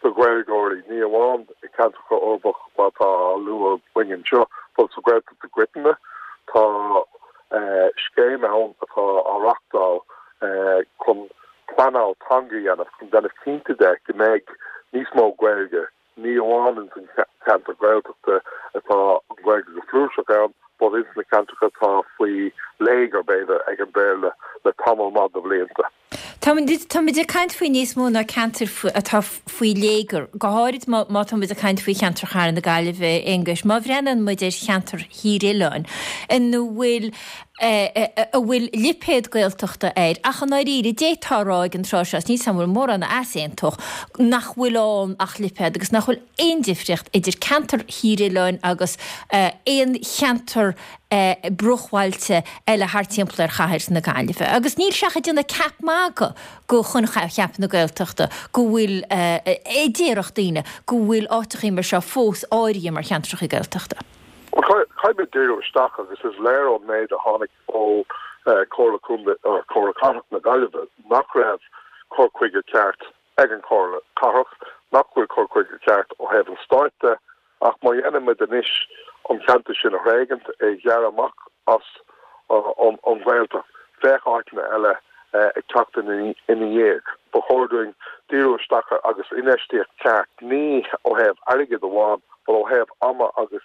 do Ghaeilgeoirí, ní amháin i gceantracha uirbeach mar atá á lua againn anseo, but sa Ghaeltacht i gcoitinne. Tá scéim ann atá á reachtáil chun pleanáil teanga a dhéanamh, chun déanamh cinnte de go mbeidh níos mó Gaeilge Ní amháin ins an cheantar Gaeltachta atá an Ghaeilge go flúirseach ann, but ins na ceantracha atá faoi léigear, b'fhéidir, ag an Bhéarla le tamall maith de bhlianta. Táimid ag caint faoi níos mó ná ceantair atá faoi léigear, go háirid má táimid ag caint faoi cheantar Chathair na Gaillimhe, Aonghuis. Má bhreathnaíonn muid ar cheantar Thír Oileáin, ina bhfuil a bhfuil lipéad Gaeltachta air, ach i ndáiríre, d'fhéadfá a rá ag an tráth seo, is níl 's agam an bhfuil mórán a easaontódh, nach bhfuil ann ach lipéad agus nach bhfuil aon difríocht idir ceantar Thír Oileáin agus aon cheantar bruachbhailte eile thart timpeall ar chathair na Gaillimhe. Agus níl sé ach ag déanamh ceap magaidh de choincheap na Gaeltachta go bhfuil, a déarfadh daoine, go bhfuil áiteachaí mar seo fós áirithe mar cheantracha Gaeltachta. Bhuel, caithfidh muid díriú isteach agus is léir ón méid a tháinig ó Comhairle Contae or Comhairle Cathrach na Gaillimhe nach raibh cur chuige ceart ag an Chomhairle Cathrach, nach bhfuil cur chuige ceart ó thaobh an stáit de, ach má dhéanann muid anois an ceantar sin a thréigint, é ghearradh amach as an Ghaeltacht, bheadh áiteanna eile ag teacht ina dhiaidh. Ba chóir dúinn díriú isteach ar agus infheistíocht ceart, ní ó thaobh airgid amháin, but ó thaobh ama agus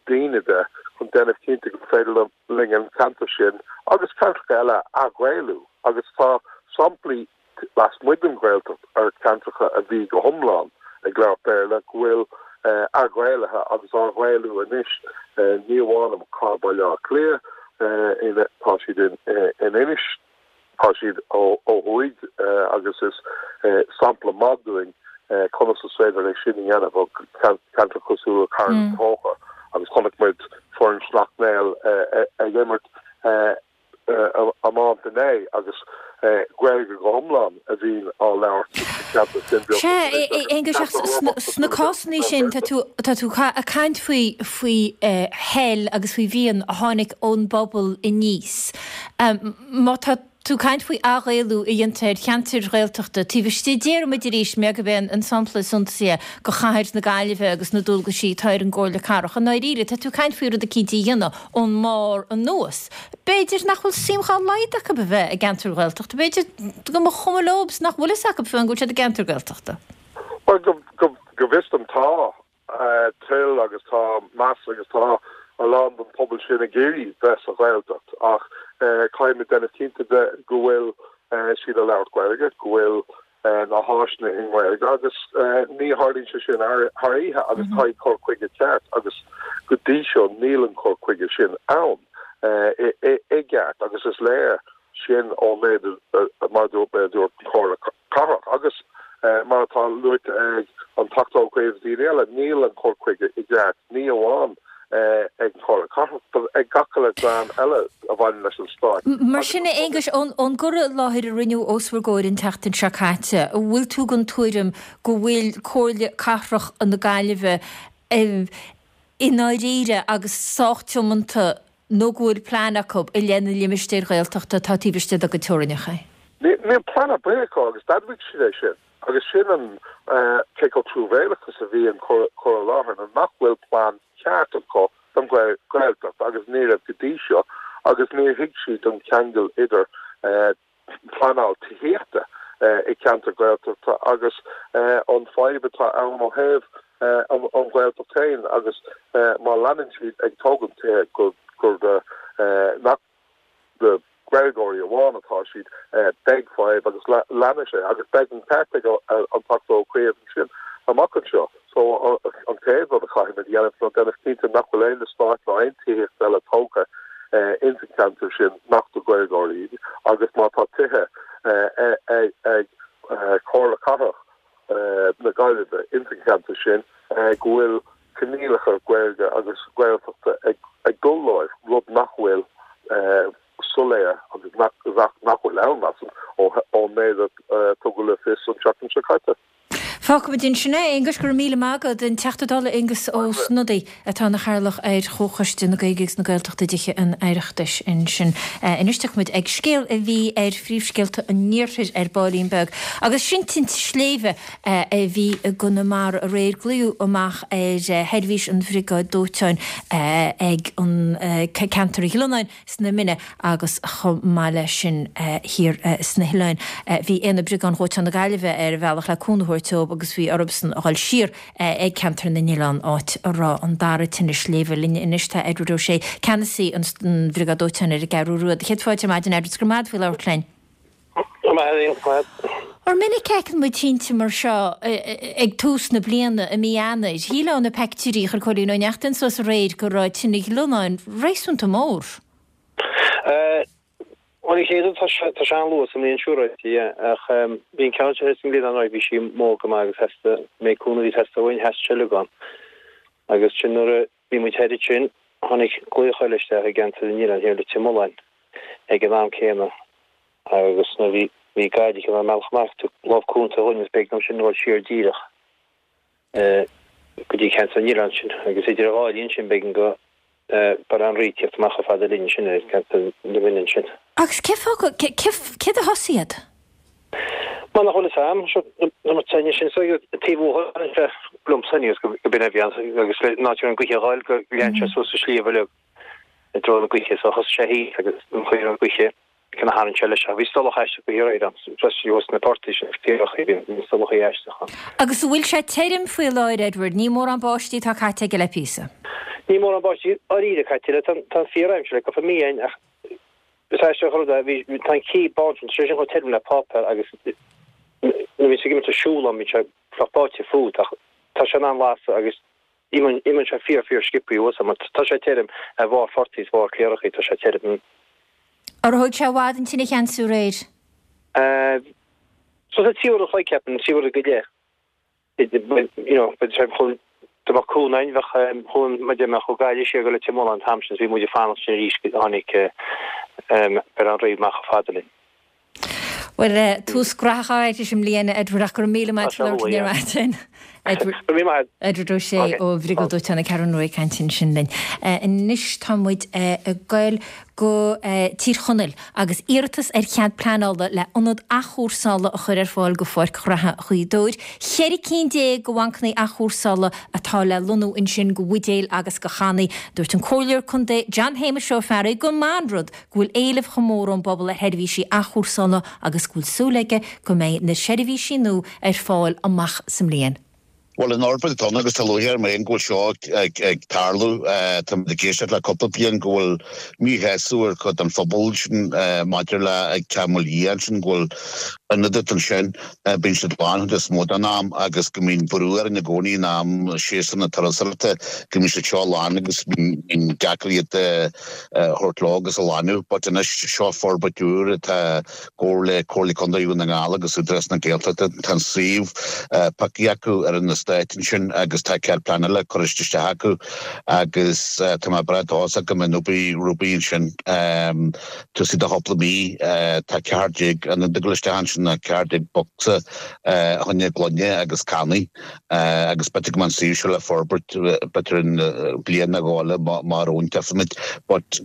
daoine de, chun déanamh cinnte gur féidir linn an ceantar sin agus ceantracha eile a athghaelú. Agus tá samplaí lasmuigh den Ghaeltacht ar cheantracha a bhí go hiomlán ag labhairt Béarla go bhfuil athghaelaithe agus á ghaelú anois, ní amháin i gcathair Bhaile Átha Cliath, tá siad in Inis, tá siad ó thuaidh agus is sampla maith dúinn conas is féidir é sin a dhéanamh ó cheantar cosúil le Carn Tóchair agus chonaic muid foireann Shleacht Néill ag imirt iomáint inné agus Gaeilge go hiomlán a bhíonn á labhairt sa cheantar sin. Sea, a Aonghuis, ach sna cásanna sin tá tú tá tú ag caint faoi faoi thoil agus faoi mhian a tháinig ón bpobal aníos. Má tá tú ag caint faoi athghaelú a dhéantar ar cheantair Ghaeltachta taobh istigh, déarfaidh muid arís, mé gurb é an sampla is suntasaí é, de chathair na Gaillimhe agus na dualgaisí atá ar an gComhairle Cathrach, i ndáiríre, tá tú ag caint faoi rud eicínt a dhéanamh ón mbarr anuas. B'fhéidir nach bhfuil suim dhá laghad acu a bheith i gceantar Ghaeltachta, b'fhéidir go mba chuma leo is nach bhfuil fhios acu fiú go bhfuil siad i gceantar Gaeltachta. Bhuel, go bhfios dom tá toil agus tá meas agus tá a lán den phobal sin ag iarraidh bheith sa Ghaeltacht ach caithfimid déanamh cinnte de go bhfuil siad ag labhairt Gaeilge, go bhfuil na háiseanna i nGaeilge agus ní tharlaíonn sé sin thar oíche agus caithfidh cur chuige ceart agus go dtí seo níl an cur chuige sin ann i gceart agus is léir sin ón méid mar a dúirt mé a dúirt an Chomhairle Cathrach agus mar atá luaite ag an Teachta Ó Cuív agus daoine eile níl an cur chuige i gceart ní amháin ag an Chomhairle Cathrach but ag gach uile dream eile a bhaineann leis an Stát. Mar sin, a Aonghuis, ón gcur i láthair a rinneadh os bhur gcomhair an tseachtain seo caite, an bhfuil tú den tuairim go bhfuil Comhairle Cathrach na Gaillimhe i ndáiríre agus sách tiomanta nó go bhfuil plean acu i leith na limistéir Ghaeltachta atá taobh istigh dá gcuid teorainneacha? Níl plean ar bith acu agus d'admhaigh siad é sin. Agus sin an cé chomh truamhéalach is a bhí an cur i láthair ná nach bhfuil plean ceart acu don Ghaeltacht agus ní raibh go dtí seo agus níor thuig siad an ceangal idir pleanáil tithíochta i gceantar Gaeltachta agus an fadhb atá ann ó thaobh an Ghaeltacht féin agus má leanann siad ag tógaint tithe gur nach do Ghaeilgeoirí amháin atá siad, beidh fadhb agus leanfaidh sé agus beidh an ceart ag an Teachta Ó Cuív ansin amach anseo. So an chéad rud a chaithfimid a dhéanamh ná déanamh cinnte nach bhfuil aon eastát ná aon tithíocht eile tógtha ins an cheantar sin nach do Ghaeilgeoirí iad agus má tá tithe ag Comhairle Cathrach na Gaillimhe ins an cheantar sin go bhfuil coinníollacha Gaeilge agus Gaeltachta ag dul leo, rud nach bhfuil soiléir agus nach bhfuil ann, measaim, ón méid a tugadh le fios an tseachtain seo caite. Fágfaimid ansin é, a Aonghuis. Go raibh míle maith agat. An Teachta Dála Aengus Ó Snodaigh atá ina chathaoirleach ar Chomhchoiste na Gaeilge agus na Gaeltachta i dTithe an Oireachtais ansin. Anois tiocfaimid ag scéal a bhí ar phríomhscéalta an iarthair ar baillín beag agus sin tinte sléibhe a bhí i gConamara aréir. Glaodh amach ar sheirbhís an Bhriogáid Dóiteáin ag an ceantar Ghlionáin sna Mine agus chomh maith leis sin thiar sna hOileáin. Bhí Aonad Briogáid Dhóiteáin na Gaillimhe ar a bhealach le cúnamh a thabhairt dóibh agus bhí orthusan a dhul siar ag ceantar na nOileán áit a raibh an dara tine sléibhe. Linn anois tá Edward O'Shea, ceannasaí an Bhriogáid Dóiteáin ar an gCeathrú Rua. Céad fáilte ar maidin Edward, 's go raibh maith agat faoi labhairt linn. Ar minic a fheiceann muid tinte mar seo ag tús na bliana, i mí Eanáir. Shílfeá ó na peictiúirí a chuir Cóilín Ó Neachtain suas aréir go raibh tine Ghlionáin réasúnta mór. Bhuel, an chéad rud, tá sé tá sé an-luath sa mbliain siúráilte, yeah, ach bhí an ceann seo thíos sa nGlionnán, right, bhí sí mór go maith agus theastaigh, méid cúnamh a bhí ag teastáil uainn, theastaigh seilg ann. Agus sin nuair a bhí muid thoir ansin, tháinig glaoch eile isteach i gceantar na nOileán thiar Leitir Mealláin ag an am céanna agus nuair bhí bhí Gaillimh ar an mbealach amach tug lámh cúnta dhúinn agus b'éigean dom sin dul siar díreach go dtí ceantar na nOileán sin agus idir an dhá linn sin b'éigean go. Baile Átha an Rí ag tíocht amach chomh fada linn ansin i gceantar na Rinne ansin. Agus cé fáth, céard a thosaigh iad? Mar nach bhfuil fhios a'm, seo na teine sin so taobh uathu sé liomsa aníos go binn a bhí ann agus le ná an gaoithe a dh'fháil go lean sé suas an sliabh uilig i dtreo na gaoithe so thosaigh sé thíos agus an chaoi a raibh an gaoithe cionn a tharraing sé leis ach bhí stolach aisteach go hiarraidh ann freisin thuas sna portaigh sin caorachaí bhí stolachaí aisteach ann. Agus an bhfuil sé tirim faoi láthair Edward? Ní mórán báistí atá caite aige le píosa. Ní mórán báistí dáiríre caite le tá an fíor-aimsir le cúpla mí againn ach Is aisteach an rud é, bhí, tá an cith bán sin, tá sé sin chomh tirim le páipéar agus nuair a bhíonn tú ag imeacht ag siúl ann bíonn sé fliuch báite fút ach tá sé in ann lasadh agus imíonn, imíonn sé fíor fíor sciobthaí uait mar tá sé tirim ar bharr phortaigh is bharr caorachaí, tá sé tirim. Ar thóg sé i bhfad an tine a cheansú aréir? Eh, so sa trí uair an chloig ceapaim, trí uair go leith. you know, but sé chun dá mbeadh cúnamh againn bheadh chuan ma dé mbeadh ó Gaillimh siar go Leitir Mealláin an t-am sin is bhí muid ag fanacht sin arís go tháinig Baile Átha an Rí amach chomh fada linn. Bhuel, tús graitheach arís i mbliana, Edward, ach go raibh míle maith agat as labhairt linn ar maidin. Edward, Go raibh míle maith. Edward Ó Sé ó Bhriogáid Dóiteáin na Ceathrún Rua ag caint ansin linn. Anois tá muid ag goil go Tír Chonaill agus iarratas ar chead pleanála le ionad athchúrsála a chur ar fáil go Pháirc Ghraithe Ghaoth Dobhair. 14 cinn de bhancanna athchúrsála atá le lonnú ansin do bhuidéil agus do channaí. Dúirt an Comhairleoir Contae John Shéamais Ó Fearraigh gur maith an rud go bhfuil éileamh chomh mór ón bpobal ar sheirbhísí athchúrsála agus go bhfuil súil aige go mbeidh na seirbhísí nua ar fáil amach sa mbliain. Bhuel, an fhorbairt atá ann agus tá lúcháir orm féin go bhfuil seo ag tarlú. Táimid ag éisteacht le cúpla bliain go bhfuil míshásamh ar chuid den phobal sin maidir le ag Teach Mhaoil Liath ansin go bhfuil ionad ansin, bíonn siad lán chuid is mó den am agus go mbíonn brú orainn i gcónaí in am séasúr na turasóireachta go mbíonn siad seo lán agus bíonn deacair iad a thabhairt leo agus a lánú. But anois seo forbairt úr atá gcomhar le Comhairle Contae Dhún na nGall agus Údarás na Gaeltachta. Tá an suíomh pioctha acu ar an eastát ansin agus tá cead pleanála curtha isteach acu agus tá mé breá dóchasach go mbeidh an obair rompu ansin tosaí do chúpla mí. Tá 14 ionad ag dul isteach ansin, 14 bocsa fá choinne gloine agus cannaí. Agus b'fhéidir go mbeidh an suíomh seo le forbairt b'fhéidir in bliain nó dhó eile má réiteoimid. But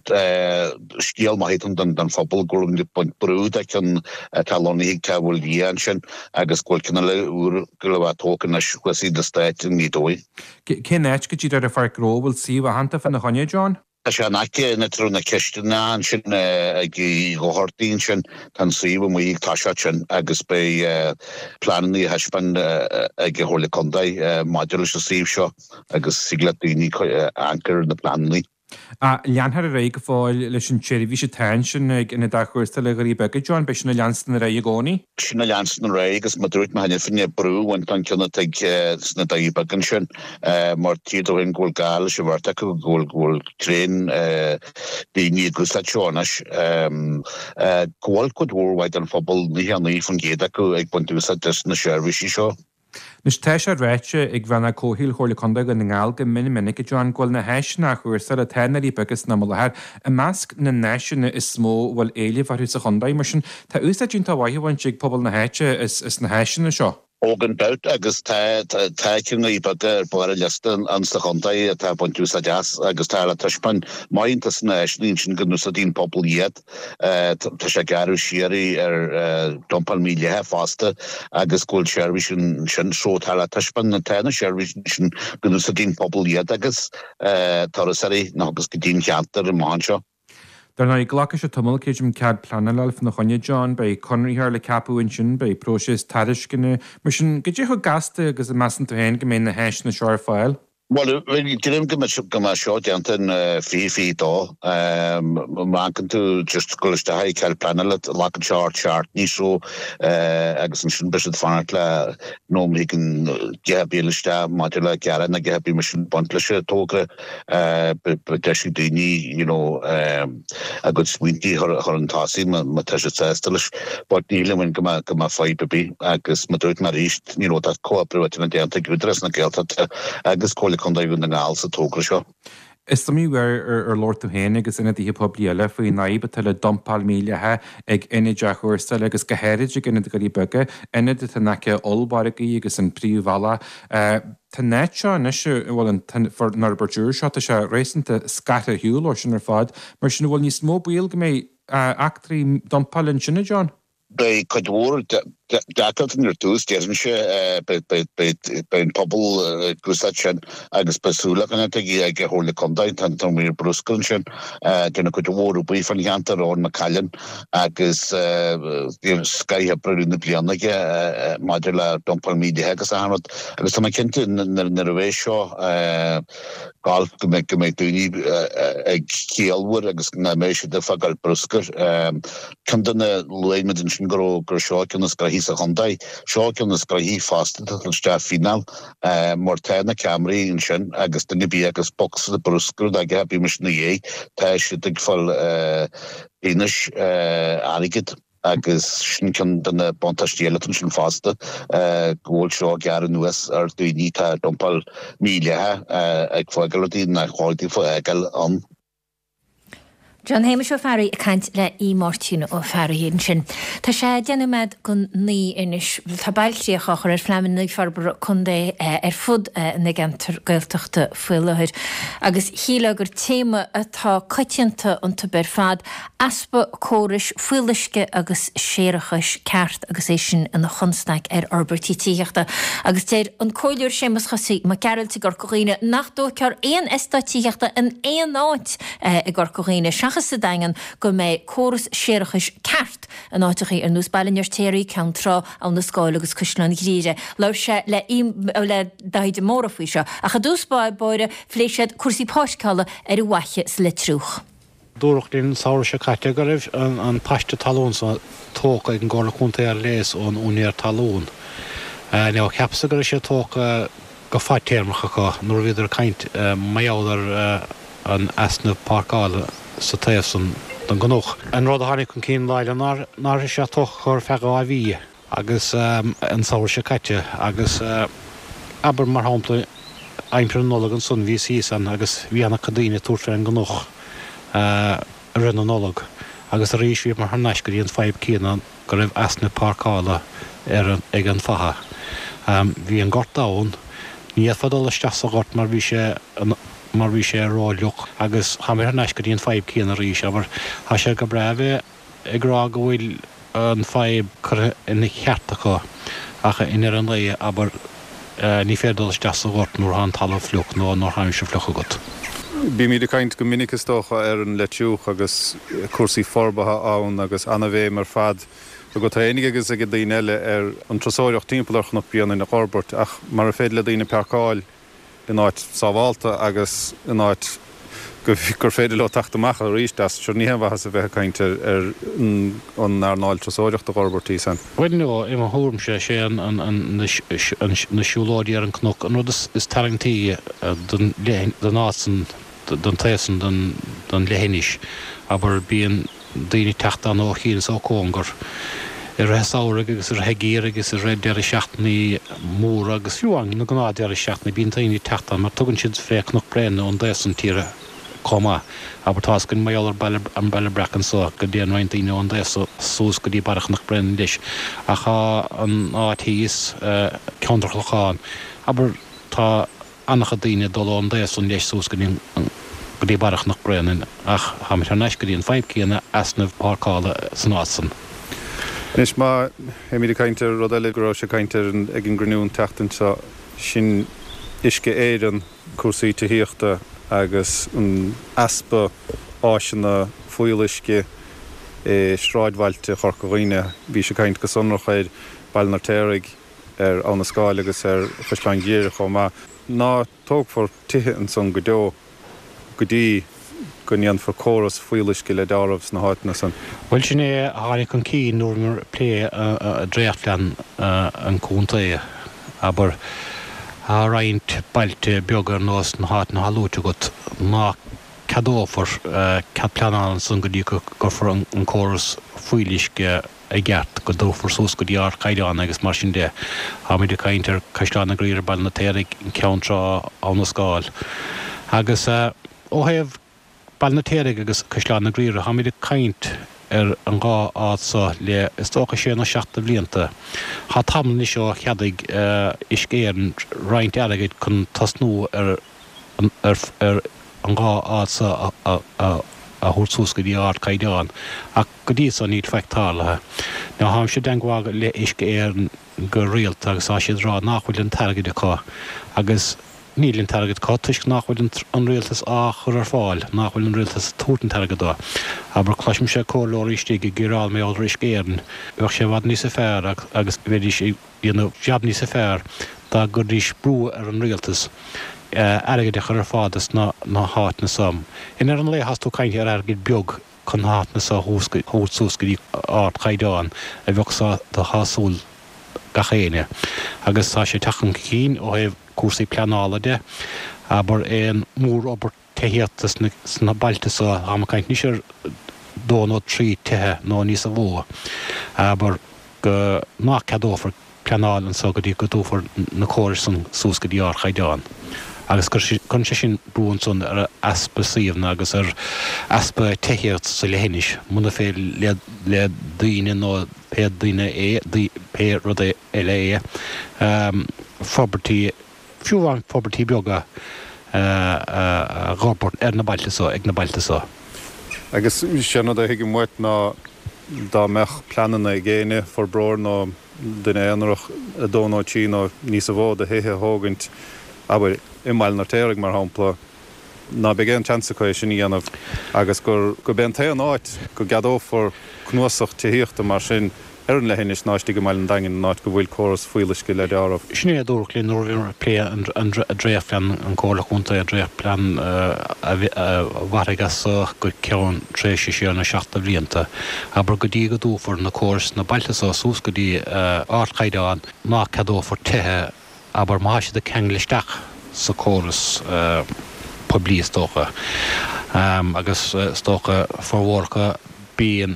scéal maith atá ann don phobal go bhfuil ag baint brú de cheann atá lonnaithe ag Teach Mhaoil Liath ansin agus go bhfuil ceann eile úr ag dul a bheith tógtha anois thuas in eastát i nGaoth Dobhair. Cén áit go díreach ar an pháirc ghnó a bhfuil suíomh aitheanta fána choinne, John? Tá sé in aice an áit a raibh na cistineacha ansin ag Uí Dhochartaigh ansin. Tá an suíomh amuigh ag toiseacht sin agus beidh pleananna á thaispeáint ag an Chomhairle Contae maidir leis an suíomh seo agus thig le daoine amharc ar na pleananna. Leanfar ar aghaidh go fóill leis an tseirbhís atá ansin ag Ionad Athchúrsála Dhoirí Beaga, John, beidh sin ag leanstan ar aghaidh i gcónaí? Sin ag leanstan ar aghaidh agus mar a dúirt mé cheana féin brú a bhaint den cheann atá ag sna Doirí Beaga ansin mar títear dom féin go bhfuil gá leis an bheirt acu, go bhfuil go bhfuil tréan daoine ag úsáid seo anois. Go bhfuil cuid mhór mhaith den phobal, 99% acu ag baint úsáid des na seirbhísí seo. Anois, tá sé ráite ag Rannóg Comhshaoil Chomhairle Contae Dhún na nGall go mion minic, a John, go bhfuil na háiseanna athchúrsála atá i nDoirí Beaga san am i láthair i measc na n-áiseanna is mó a bhfuil éileamh orthu sa chontae. Mar sin, tá úsáid iontach mhaith á bhaint ag pobal na háite as na háiseanna seo. Ó gan dabht, agus tá tá ceann na nDoirí Beaga ar barr an liosta insa chontae atá ag baint úsáid as agus tá le taispeáint maith iontas na háiseanna ansin go n-úsáideann an pobal iad. Tá sé ag gearradh siar ar dumpáil mhídhleathach fosta agus go bhfuil seirbhís ansin so tá le taispeáint tá na seirbhísí sin go n-úsáideann an pobal iad agus turasóirí nach agus go dtí an cheantar amach anseo. Dar ndóigh, glacfaidh sé tamall, creidim, cead pleanála a fháil fána choinne, John. Beidh conraitheoir le ceapadh ansin, beidh próiseas tairisceana. Mar sin, goidé chomh gasta agus a measann tú féin go mbeidh na háiseanna seo ar fáil? Bhuel, creidim go mbeidh seo déanta in 2022. Má amharcann tú just dul isteach ag cead pleanála, glacann sé thart seachtain nó so agus ansin beidh siad ag fanacht le nó má thigeann a dhath ar bith isteach maidir le gearán nó a dhath ar bith mar sin ag baint leis an togra. Beidh deis ag daoine you know a gcuid smaointe a chur chun tosaigh má tá siad sásta leis. But ní shílim go mbeidh go mbeidh fadhb ar bith agus mar a dúirt mé arís, You know, tá comhoibriú idir na déanta ag Údarás na Gaeltachta agus Comhairle Contae Dhún na nGall sa togra seo. Is iomaí uair ar labhair tú féin agus ionadaithe poiblí eile faoin fhadhb atá le dumpáil mhídhleathach ag ionaid athchúrsála agus go háirid ag ionad Dhoirí Beaga, ionad atá in aice ollmhargaidh agus an príomhbhealach. Tá an áit seo anois, bhuel an fhorbairt úr seo, tá sé réasúnta scartha ar shiúl ó sin ar fad. Mar sin an bhfuil níos mó baol go mbeidh eachtraí dumpála ansin, a John? Beidh cuid mhór deacrachtaí ar dtús, déarfainnse. Beidh an pobal ag úsáid sin agus beidh súil againn ag an Chomhairle Contae. Tá an Maor Bruscair ansin, déanamh cuid mhór obair fán cheantar, Eoin McCallion, agus bhí scoith oibre i rith na bliana aige maidir le dumpáil mhídhleathach agus achan rud. Agus tá mé cinnte nuair a bheidh seo gabháil go mbeidh go mbeidh daoine ag ciallmhar agus nach mbeidh siad ag fágáil bruscair. Ceann de na, luaigh muid ansin go raibh, gur seo ceann is gnoithí sa chontae. Seo ceann is gnoithí fosta atá ag dul isteach fíneáil mar tá na ceamaraí ansin agus duine ar bith agus bocsa bruscair aige, bíonn mise ina dhiaidh, tá siad ag fáil pionóis airgid agus sin ceann de na buntáistí eile atá ansin fosta go bhfuil seo ag gearradh anuas ar daoine atá ag dumpáil mídhleathach ag fágáil rudaí nach chóir daofa a fhágáil ann. John Shéamais Ó Fearraigh ag caint le Aodh Máirtín Ó Fearraigh ansin. Tá sé 10 nóiméad go 9 anois. Tá bailchríoch á chur ar phleananna forbartha contae ar fud na gceantar Gaeltachta faoi láthair agus shílfeá gur téama atá coitianta iontu ar fad, easpa córais fuíolluisce agus séarachais ceart agus é sin ina chonstaic ar fhorbairtí tithíochta. Agus deir an Comhairleoir Séamus Chosaí Mac Gearailt i gCorca Dhuibhne nach dtógfar aon eastát tithíochta in aon áit i gCorca Dhuibhne seachas sa Daingean go mbeidh córas séarachais ceart in áiteachaí ar nós Baile an Fheirtéaraigh, Ceann Trá, Abha na Scáil agus Caisleán Ghriaire. Labhair sé le le Daithí de Mórdha faoi seo ach i dtús báire phléigh siad cúrsaí páirceála ar an bhFaiche sa Leitriúch. Dúradh linn an samhradh seo caite go raibh an paiste talún so tógtha ag an gComhairle Contae ar léas ón úinéir talún. Now, cheapas-sa go raibh sé tógtha go fadtéarmach acu nuair a bhíodar ag caint mar gheall ar an easnamh páirceála sa taobh san den gcnoc. An rud a tháinig chun cinn lá eile ná nach raibh sé tógtha acu ar feadh 2 mhí. agus an samhradh seo caite agus abair mar shampla aimsir na Nollag ansan bhíos thíos ann agus bhí ana-chuid daoine ag tabhairt fén gcnoc i rith na Nollag agus arís bhíomar thar n-ais go dtí an fadhb céanna go raibh easnamh páirceála ar ag an bhfaiche. Bhí an gort ann, ní fhéadfá dul isteach sa ghort mar bhí sé mar bhí sé ró-fhliuch agus tháimir thar n-ais go dtí an fadhb céanna arís abair tá sé go breá a bheith ag rá go bhfuil an fadhb curtha ina cheart acu ach i ndeireadh an lae, abair, ní féidir dul isteach sa ghort nuair atá an talamh fliuch nó nuair atá aimsir fliuch agat. Bímid ag caint go minic is dócha ar an Leitriúch agus cúrsaí forbartha ann agus ana-bhéim ar fad agat féinig agus ag daoine eile ar an turasóireacht timpeall ar Chnoc Bréanainn a fhorbairt ach mara féidir le daoine páirceáil in áit sábhálta agus in áit gur féidir leo teacht amach arís as, sure ní haon mhaitheas a bheith ag caint ar an earnáil turasóireachta a fhorbairt thíos ann. Bhuel no, i mo thuairimse, is é na siúlóidí ar an gcnoc an rud is tarraingtí don áit san, don taobh san den leithinis. Abair, bíonn. daoine ag teacht ann ó chian is ó chóngar i rith an samhraidh agus i rith an gheimhridh agus i rith deireadh seachtainí móra agus fiú amháin na gnáth deireadh seachtaine bíonn daoine ag teacht ann mar tugann siad fé Cnoc Bréanainn ón dtaobh san tíre chomh maith. Abair tá's againn mar gheall ar Baile an Baile Breac anso go dtéann roinnt daoine ón dtaobh so suas go dtí barra Chnoc Bréanainn leis ach tá an áit thíos, Ceantar Chlocháin, abair tá an-chuid daoine ag dul ón dtaobh san leis suas go dtí go dtí barra Chnoc Bréanainn ach táimid thar n-ais go dtí an fadhb céanna, easnamh páirceála san áit san. Anois má théimid ag caint ar rud eile go raibh sé caint air ag an gcruinniú an tseachtain seo, sin Uisce Éireann, cúrsaí tithíochta agus an easpa áiseanna fuíolluisce i sráidbhailte Chorca Dhuibhne. Bhí sé ag caint go sonrach ar Baile an Fheirtéaraigh, ar Abha na Scáil agus ar Chaisleán Ghriaire chomh maith. Ná tógfar tithe ansan go deo go dtí go ndéanfar córas fuíolluisce le deáramh sna háiteanna san. Bhuel, sin é a tháinig chun cinn nuair a bhíomar ag plé dréachtphlean an chontae. Abair, tá roinnt bailte beaga ar nós na háiteanna atá luaite agat ná ceadófar cead pleanála ansan go dtí go gcuirfear an córas fuíolluisce i gceart, go dtabharfar suas go dtí ardchaighdeán agus mar sin de. Táimid ag caint ar Caisleán na Griaire, Baile an Fheirtéaraigh, Ceann Trá, Abha na Scáil. Agus. Ó thaobh Baile an Fheirtéaraigh agus Caisleán na Graoire, táimid ag caint ar an dhá áit so le is dócha sé nó seacht de bhlianta. Tá tamall anois ó cheadaigh Uisce Éireann roinnt airgid chun tosnú ar ar an dhá áit so a thabhairt suas go dtí ardchaighdeán, ach go dtí so níl faic tarlaithe. Now táimse i dteangmháil le Uisce Éireann go rialta agus tá siad ag rá nach bhfuil an t-airgead acu agus níl an t-airgead acu toisc nach bhfuil an rialtas á chur ar fáil, nach bhfuil an rialtas ag tabhairt an t-airgead dó. Abair, cloisimse comhairleoirí istigh ag gearán mar gheall ar Uisce Éireann, bheadh sé i bhfad níosa fearr agus bheidís ag déanamh jab níosa fearr dá gcuiridís brú ar an rialtas airgead a chur ar fáil dos na háiteanna so. I ndeireadh an lae thás tú ag caint ar airgead beag chun na háiteanna so a thabhairt suas go dtí ardchaighdeán a bheadh do shásúil gach éinne. Agus tá sé ag teacht chun cinn ó thaobh cúrsaí pleanála de, abair aon mhórfhorbairt tithíochta sna bailte so, táim ag caint anois ar dó nó trí tithe nó níosa mhó, abair go nach ceadófar pleanáil anso go dtí go dtabharfar na córais san suas go dtí ardchaighdeán. Agus cuireann sé sin brú ansan ar easpa suíomhanna agus ar easpa tithíocht sa leithinis, muna féidir le daoine nó pé duine é, pé rud eile é, forbairtí, fiú amháin forbairtí beaga a dh'fhorbairt ar na bailte so, ag na bailte so. Agus sé an rud a thuigim uait ná dá mbeadh pleananna ag éinne, forbróir nó duine aonarach, a dó nó trí nó níosa mhó de thithe a thógaint, abair, i mBaile an Fheirtéaraigh mar shampla, ná beidh aon tseans acu é sin a dhéanamh agus gur gurb é an t-aon áit go gceadófar cnuasach tithíochta mar sin ar an leithinis ná istigh i mbaile an Daingin, an áit go bhfuil córas fuíolluisce le deáramh. Sin é a dúradh linn nuair a bhíomar ag plé an dréachtphlean, an Comhairle Chontae, an dréachtphlean a mhairfidh as so go ceann tréimhse sé nó seacht de bhlianta. Abair go dtí go dtabharfar na córais sna bailte so suas go dtí ardchaighdeán, ná ceadófar tithe abair, má tá siad ag ceangal isteach sa córas poiblí is dócha, agus is dócha formhór acu bíonn,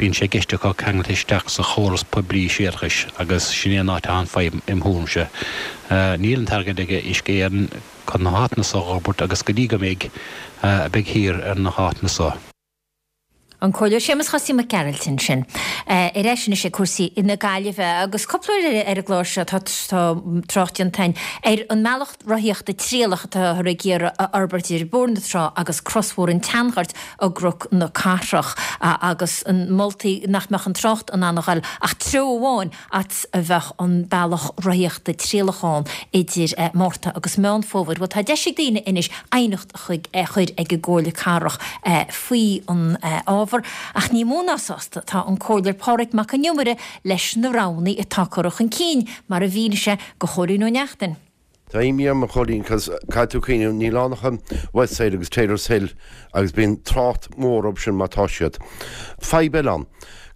bíonn sé i gceist acu ceangal isteach sa chóras poiblí séarachais agus sin é an áit atá an fadhb im thuairimse. Níl an t-airgead ag Uisce Éireann chun na háiteanna so a dh'fhorbairt agus go dtí go mbeidh, beidh thiar ar na háiteanna so. An Comhairleoir Séamus Chosaí Mac Gearailt ansin. Ar ais anois ag cúrsaí na Gaillimhe agus cúpla uair ar an gclár seo tá trácht déanta againn ar an mbealach rothaíochta trialach atáthar ag iarraidh a fhorbairt idir Bóthar na Trá agus Crosbhóthar an tSeanghoirt i gCnoc na Cathrach agus na moltaí nach mbeadh an trácht in ann a ghoil ach treo amháin fhad is a bheadh an bealach rothaíochta trialach ann idir Márta agus Meán Fómhair. Bhuel tá deis ag daoine anois aighneacht chuig a chur ag an gComhairle Cathrach faoi an ábhar, ach ní mó ná sásta atá an Comhairleoir Pádraig Mac Con Iomaire leis na roghanna atá curtha chun cinn, mar a mhínigh sé do Chóilín Ó Neachtain. Tá imní orm, a Chóilín, 'cause caithfidh tú cuimhneamh, níl ann ach an Westside agus Taylor's Hill agus bíonn trácht mór orthu sin má tá siad. Fadhb eile ann,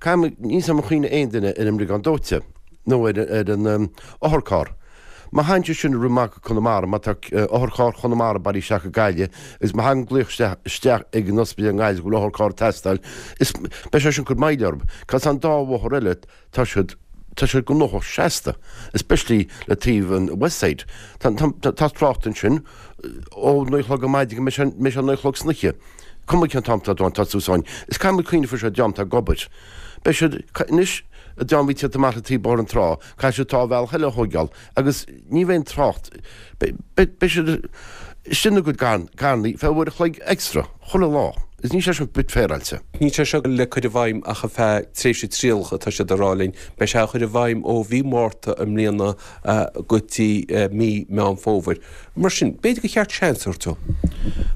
caithfidh, níl 's agam an cuimhin le aon duine ar an mbriogáid dóite nó ar an otharcharr. Má thagann sé sin ag rith amach go Conamara, má tá otharcharr Chonamara bailithe isteach go Gaillimh agus má thagann glaoch isteach isteach ag an ospidéal i nGaillimh go bhfuil otharcharr ag teastáil, is beidh sé sin ag cur moill orthu. 'Cause an dá bhóthar eile, tá siad, tá siad gnóthach seasta, especially le taobh an Westside. Tá, tá, tá trácht ansin ó naoi a chlog ar maidin go mbeidh sé, mbeidh sé naoi a chlog san oíche. Cuma cén t-am atá tú ann, tá tú ann. Is caithfidh muid cuimhneamh faoi seo, dream atá ag obair. Beidh siad, anois, an dream a bhí ag tíocht amach le taobh Bóthar na Trá, caithfidh siad tá bealach eile a thóigeáil agus ní bheidh an trácht, beidh siad istigh ina gcuid carrannaí feadh uair a chloig extra chuile lá agus níl sé sin bit féaráilte. Níl sé seo le cur i bhfeidhm ach ar feadh tréimhse trialach atá siad ag rá linn. Beidh sé á chur i bhfeidhm ó mhí Márta i mbliana go dtí mí Meán Fómhair. Mar sin, b'fhéidir gur cheart seans a thabhairt dó.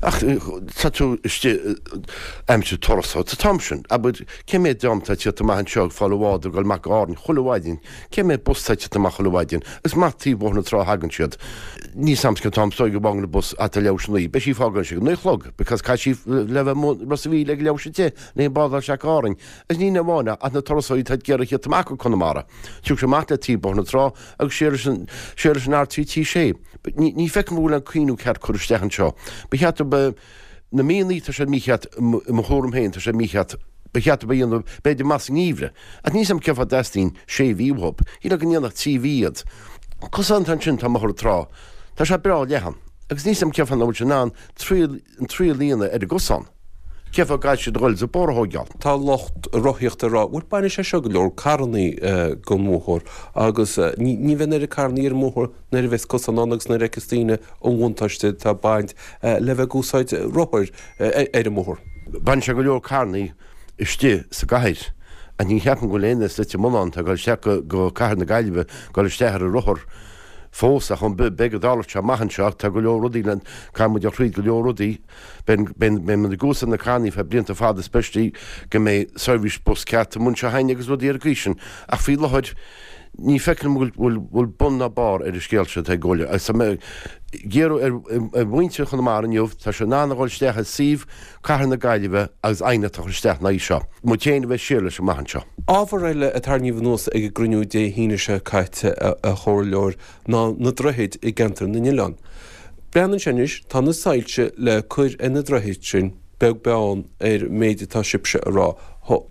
Ach tá tú istigh aimsir turas sa t-am sin. Abair, cé mhéad dream atá ag tíocht amach anseo ag fáil an bhád ag dul amach go Árainn chuile mhaidin? Cé mhéad bus atá ag tíocht amach chuile mhaidin? Is amach taobh Bhóthar na Trá a thagann siad. Níl 's a'm cén t-am is dóigh go bhfágann an bus ata leathuair tar éis a naoi. Beidh sí ag fágáil ag naoi a chlog because caithfidh sí le bheith amuigh Ros a' Mhíl ag leathuair tar éis a deich le an bád a fháil isteach go Árainn. Agus ní amháin ach na turasóirí atá ag iarraidh tíocht amach go Conamara. Tiocfaidh siad amach le taobh Bóthar na Trá agus siar leis an siar leis an R3T6. Ní feicim go bhfuil an cuimhniú ceart curtha isteach anseo. Ba cheart do na míonna, tá siad mícheart, i mo thuairim féin, tá siad mícheart. Ba cheart dóibh a dhéanamh, b'fhéidir, amach sa ngeimhreadh. Ach níl 's a'm cén fáth a dteastaíonn sé mhí uathu. Shílfeá go ndéanfadh 3 mhí iad. Cosán atá ansin, tá i mBóthar na Trá. Tá sé breá leathan. Agus níl 's a'm cén fáth nach bhfuil siad in ann triail, an triail a dhéanamh ar an gcosán. Cén fáth go gcaithfidh siad a dhul is an bóthar a thóigeáil? Tá lucht rothaíochta ag rá, bhuel bainfidh sé seo go leor carrannaí den bhóthar agus ní bheidh an oiread carrannaí ar an mbóthar nuair a bheas cosán ann agus nuair a fheiceas daoine an bhuntáiste atá ag baint le bheith ag úsáid rothair ar an mbóthar. Bainfidh sé go leor carrannaí istigh sa gcathair ach ní cheapaim go bhfuil aon duine as Leitir Mealláin atá ag dul isteach go cathair na Gaillimhe ag dul isteach ar a rothar fós ach beidh go dtarlóidh sé amach anseo ach tá go leor rudaí le, caithfidh muid a throid go leor rudaí. Beidh, beidh, beidh muid ag úsáid na carrannaí feadh blianta fada especially go mbeidh seirbhís bus ceart amuigh anseo againn agus rudaí ar an gcaoi sin ach faoi láthair ní feicim go bhfuil, bhfuil bun ná barr ar an scéal seo atá ag gabháil agus tá mé ag iarraidh ar, ar mhuintir Chonamara inniu, tá siad in ann a dhul isteach i suíomh Cathair na Gaillimhe agus aighneacht a chur isteach ina aghaidh seo. Muid féin a bheith siar leis amach anseo. Ábhar eile a tarraingíodh anuas ag an gcruinniú Dé hAoine seo caite, a Chomhairleoir, ná na droichid i gceantar na n-oileán. Breathnaíonn sé anois, tá na soilse le cur ar na droichid sin, beag beann ar an méid atá sibhse a rá.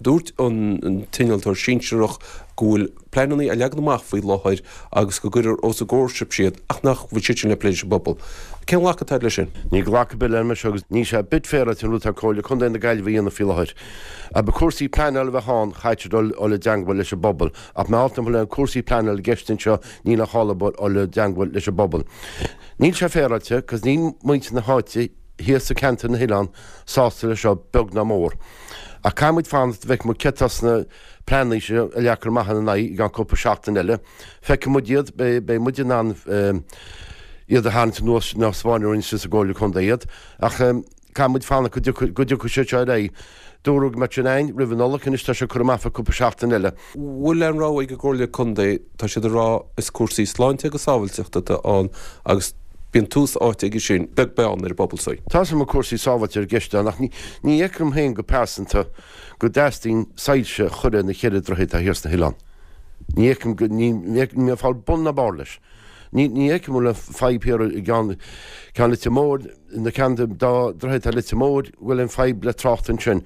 Dúirt an t-innealtóir sinsearach go bhfuil pleananna á leagan amach faoi láthair agus go gcuirfear os a gcomhair sibhse iad ach nach bhfuil siad sin le plé leis an bpobal. Cén ghlacadh atá agat leis sin? Níl glacadh ar bith leis seo agus níl sé ar bit féaráilte an rud atá Comhairle Contae na Gaillimhe a dhéanamh faoi láthair. Dá mba cúrsaí pleanála a bheadh ann chaithfeadh siad dul i dteangmháil leis an bpobal ach mar nach bhfuil aon cúrsaí pleanála i gceist anseo níl aon chall dul i dteangmháil leis an bpobal. Níl sé féaráilte cos níl muintir na háite thíos i ceantar na hoileán sásta leis seo beag ná mór. Ach caithfidh muid fanacht go bhfeicfidh muid céard atá sna pleananna seo a leagfar amach ina n-aghaidh i gceann cúpla seachtain eile. Feicfidh muid iad, beidh muid in ann iad a tharraingt anuas nó spáin orainn sa gComhairle Contae iad. Ach caithfidh muid fanacht go dtiocfaidh siad seo ar aghaidh. Dúradh go mbeadh sin againn roimh an Nollaig, anois tá sé curtha amach fá cúpla seachtain eile. Bhfuil aon rogha ag an gComhairle Contae, tá siad ag rá is cúrsaí sláinte agus sábhailteachta atá ann agus bíonn tús áite aige sin, beag beann ar an bpobal saoi. Tá 's agam go bhfuil cúrsaí sábháilte i gceist ann ach ní fheicim féin go pearsanta go dteastaíonn soilse a chur ar na cheithre droichead atá thiar sna hoileáin. Ní fheicim go, ní fheicim, níl mé ag fáil bun ná barr leis. Ní fheicim go bhfuil aon fadhb thiar i gceann, ceann Leitir Móir, na ceann den dá droichead atá Leitir Móir, go bhfuil aon fadhb le trácht ansin.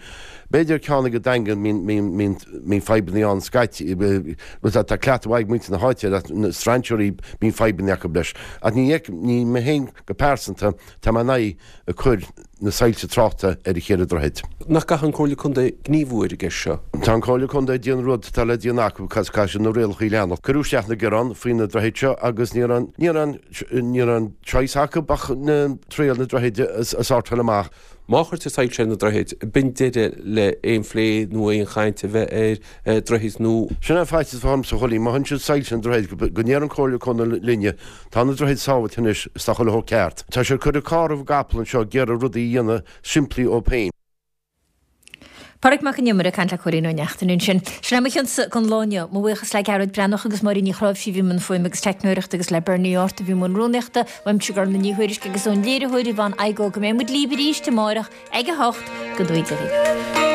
B'fhéidir ceann ag an Daingean, mbíonn, mbíonn fadhbanna ann scaití, tá cleachtadh mhaith ag muintir na háite air ach na strainséirí, bíonn fadhbanna acu leis. Ach ní fheicim, ní mé féin go pearsanta, tá mé in aghaidh ag cur na soilse tráchta ar an cheithre droichead. Nach gcaithfidh an Comhairle Contae gníomhú ar an gceist seo? Tá an Comhairle Contae ag déanamh rud atá le déanamh acu cos caithfidh siad na rialacha a leanacht. Cuireadh isteach na gearáin faoi na droichid seo agus ní raibh, ní raibh, ní raibh aon choice acu ach na triail na droichid a sortáil amach. Má chuirtear soilse ar na droichid, b'in deireadh le aon phlé nó aon chaint a bheith ar droichid nua. Sin é faitíos atá ormsa a Chóilín, má thugann siad soilse ar na droichid go ndéarfaidh an Comhairle Contae linne, tá na droichid sábhailte anois is tá chuile shórt ceart. Tá siad ag cur an carr roimh an gcapall anseo ag iarraidh rudaí a dhéanamh simplí dóibh féin. Pádraig Mac an Iomaire ag caint le Cóilín Ó Neachtain ansin. Sin é mo chionsa don lá inniu. Mo bhuíochas le Gearóid Breathnach agus Máirín Ní Chráimhsí a bhí i mbun fuaime agus teicneoireachta agus le Bernie Art a bhí i mbun rúnaíochta. Uaimse Gormfhlaith Ní Thuairisg agus ón léiritheoir Yvonne Igoe go mbeidh muid libh arís amárach ag a 8 go dtugaí Dia dhaoibh.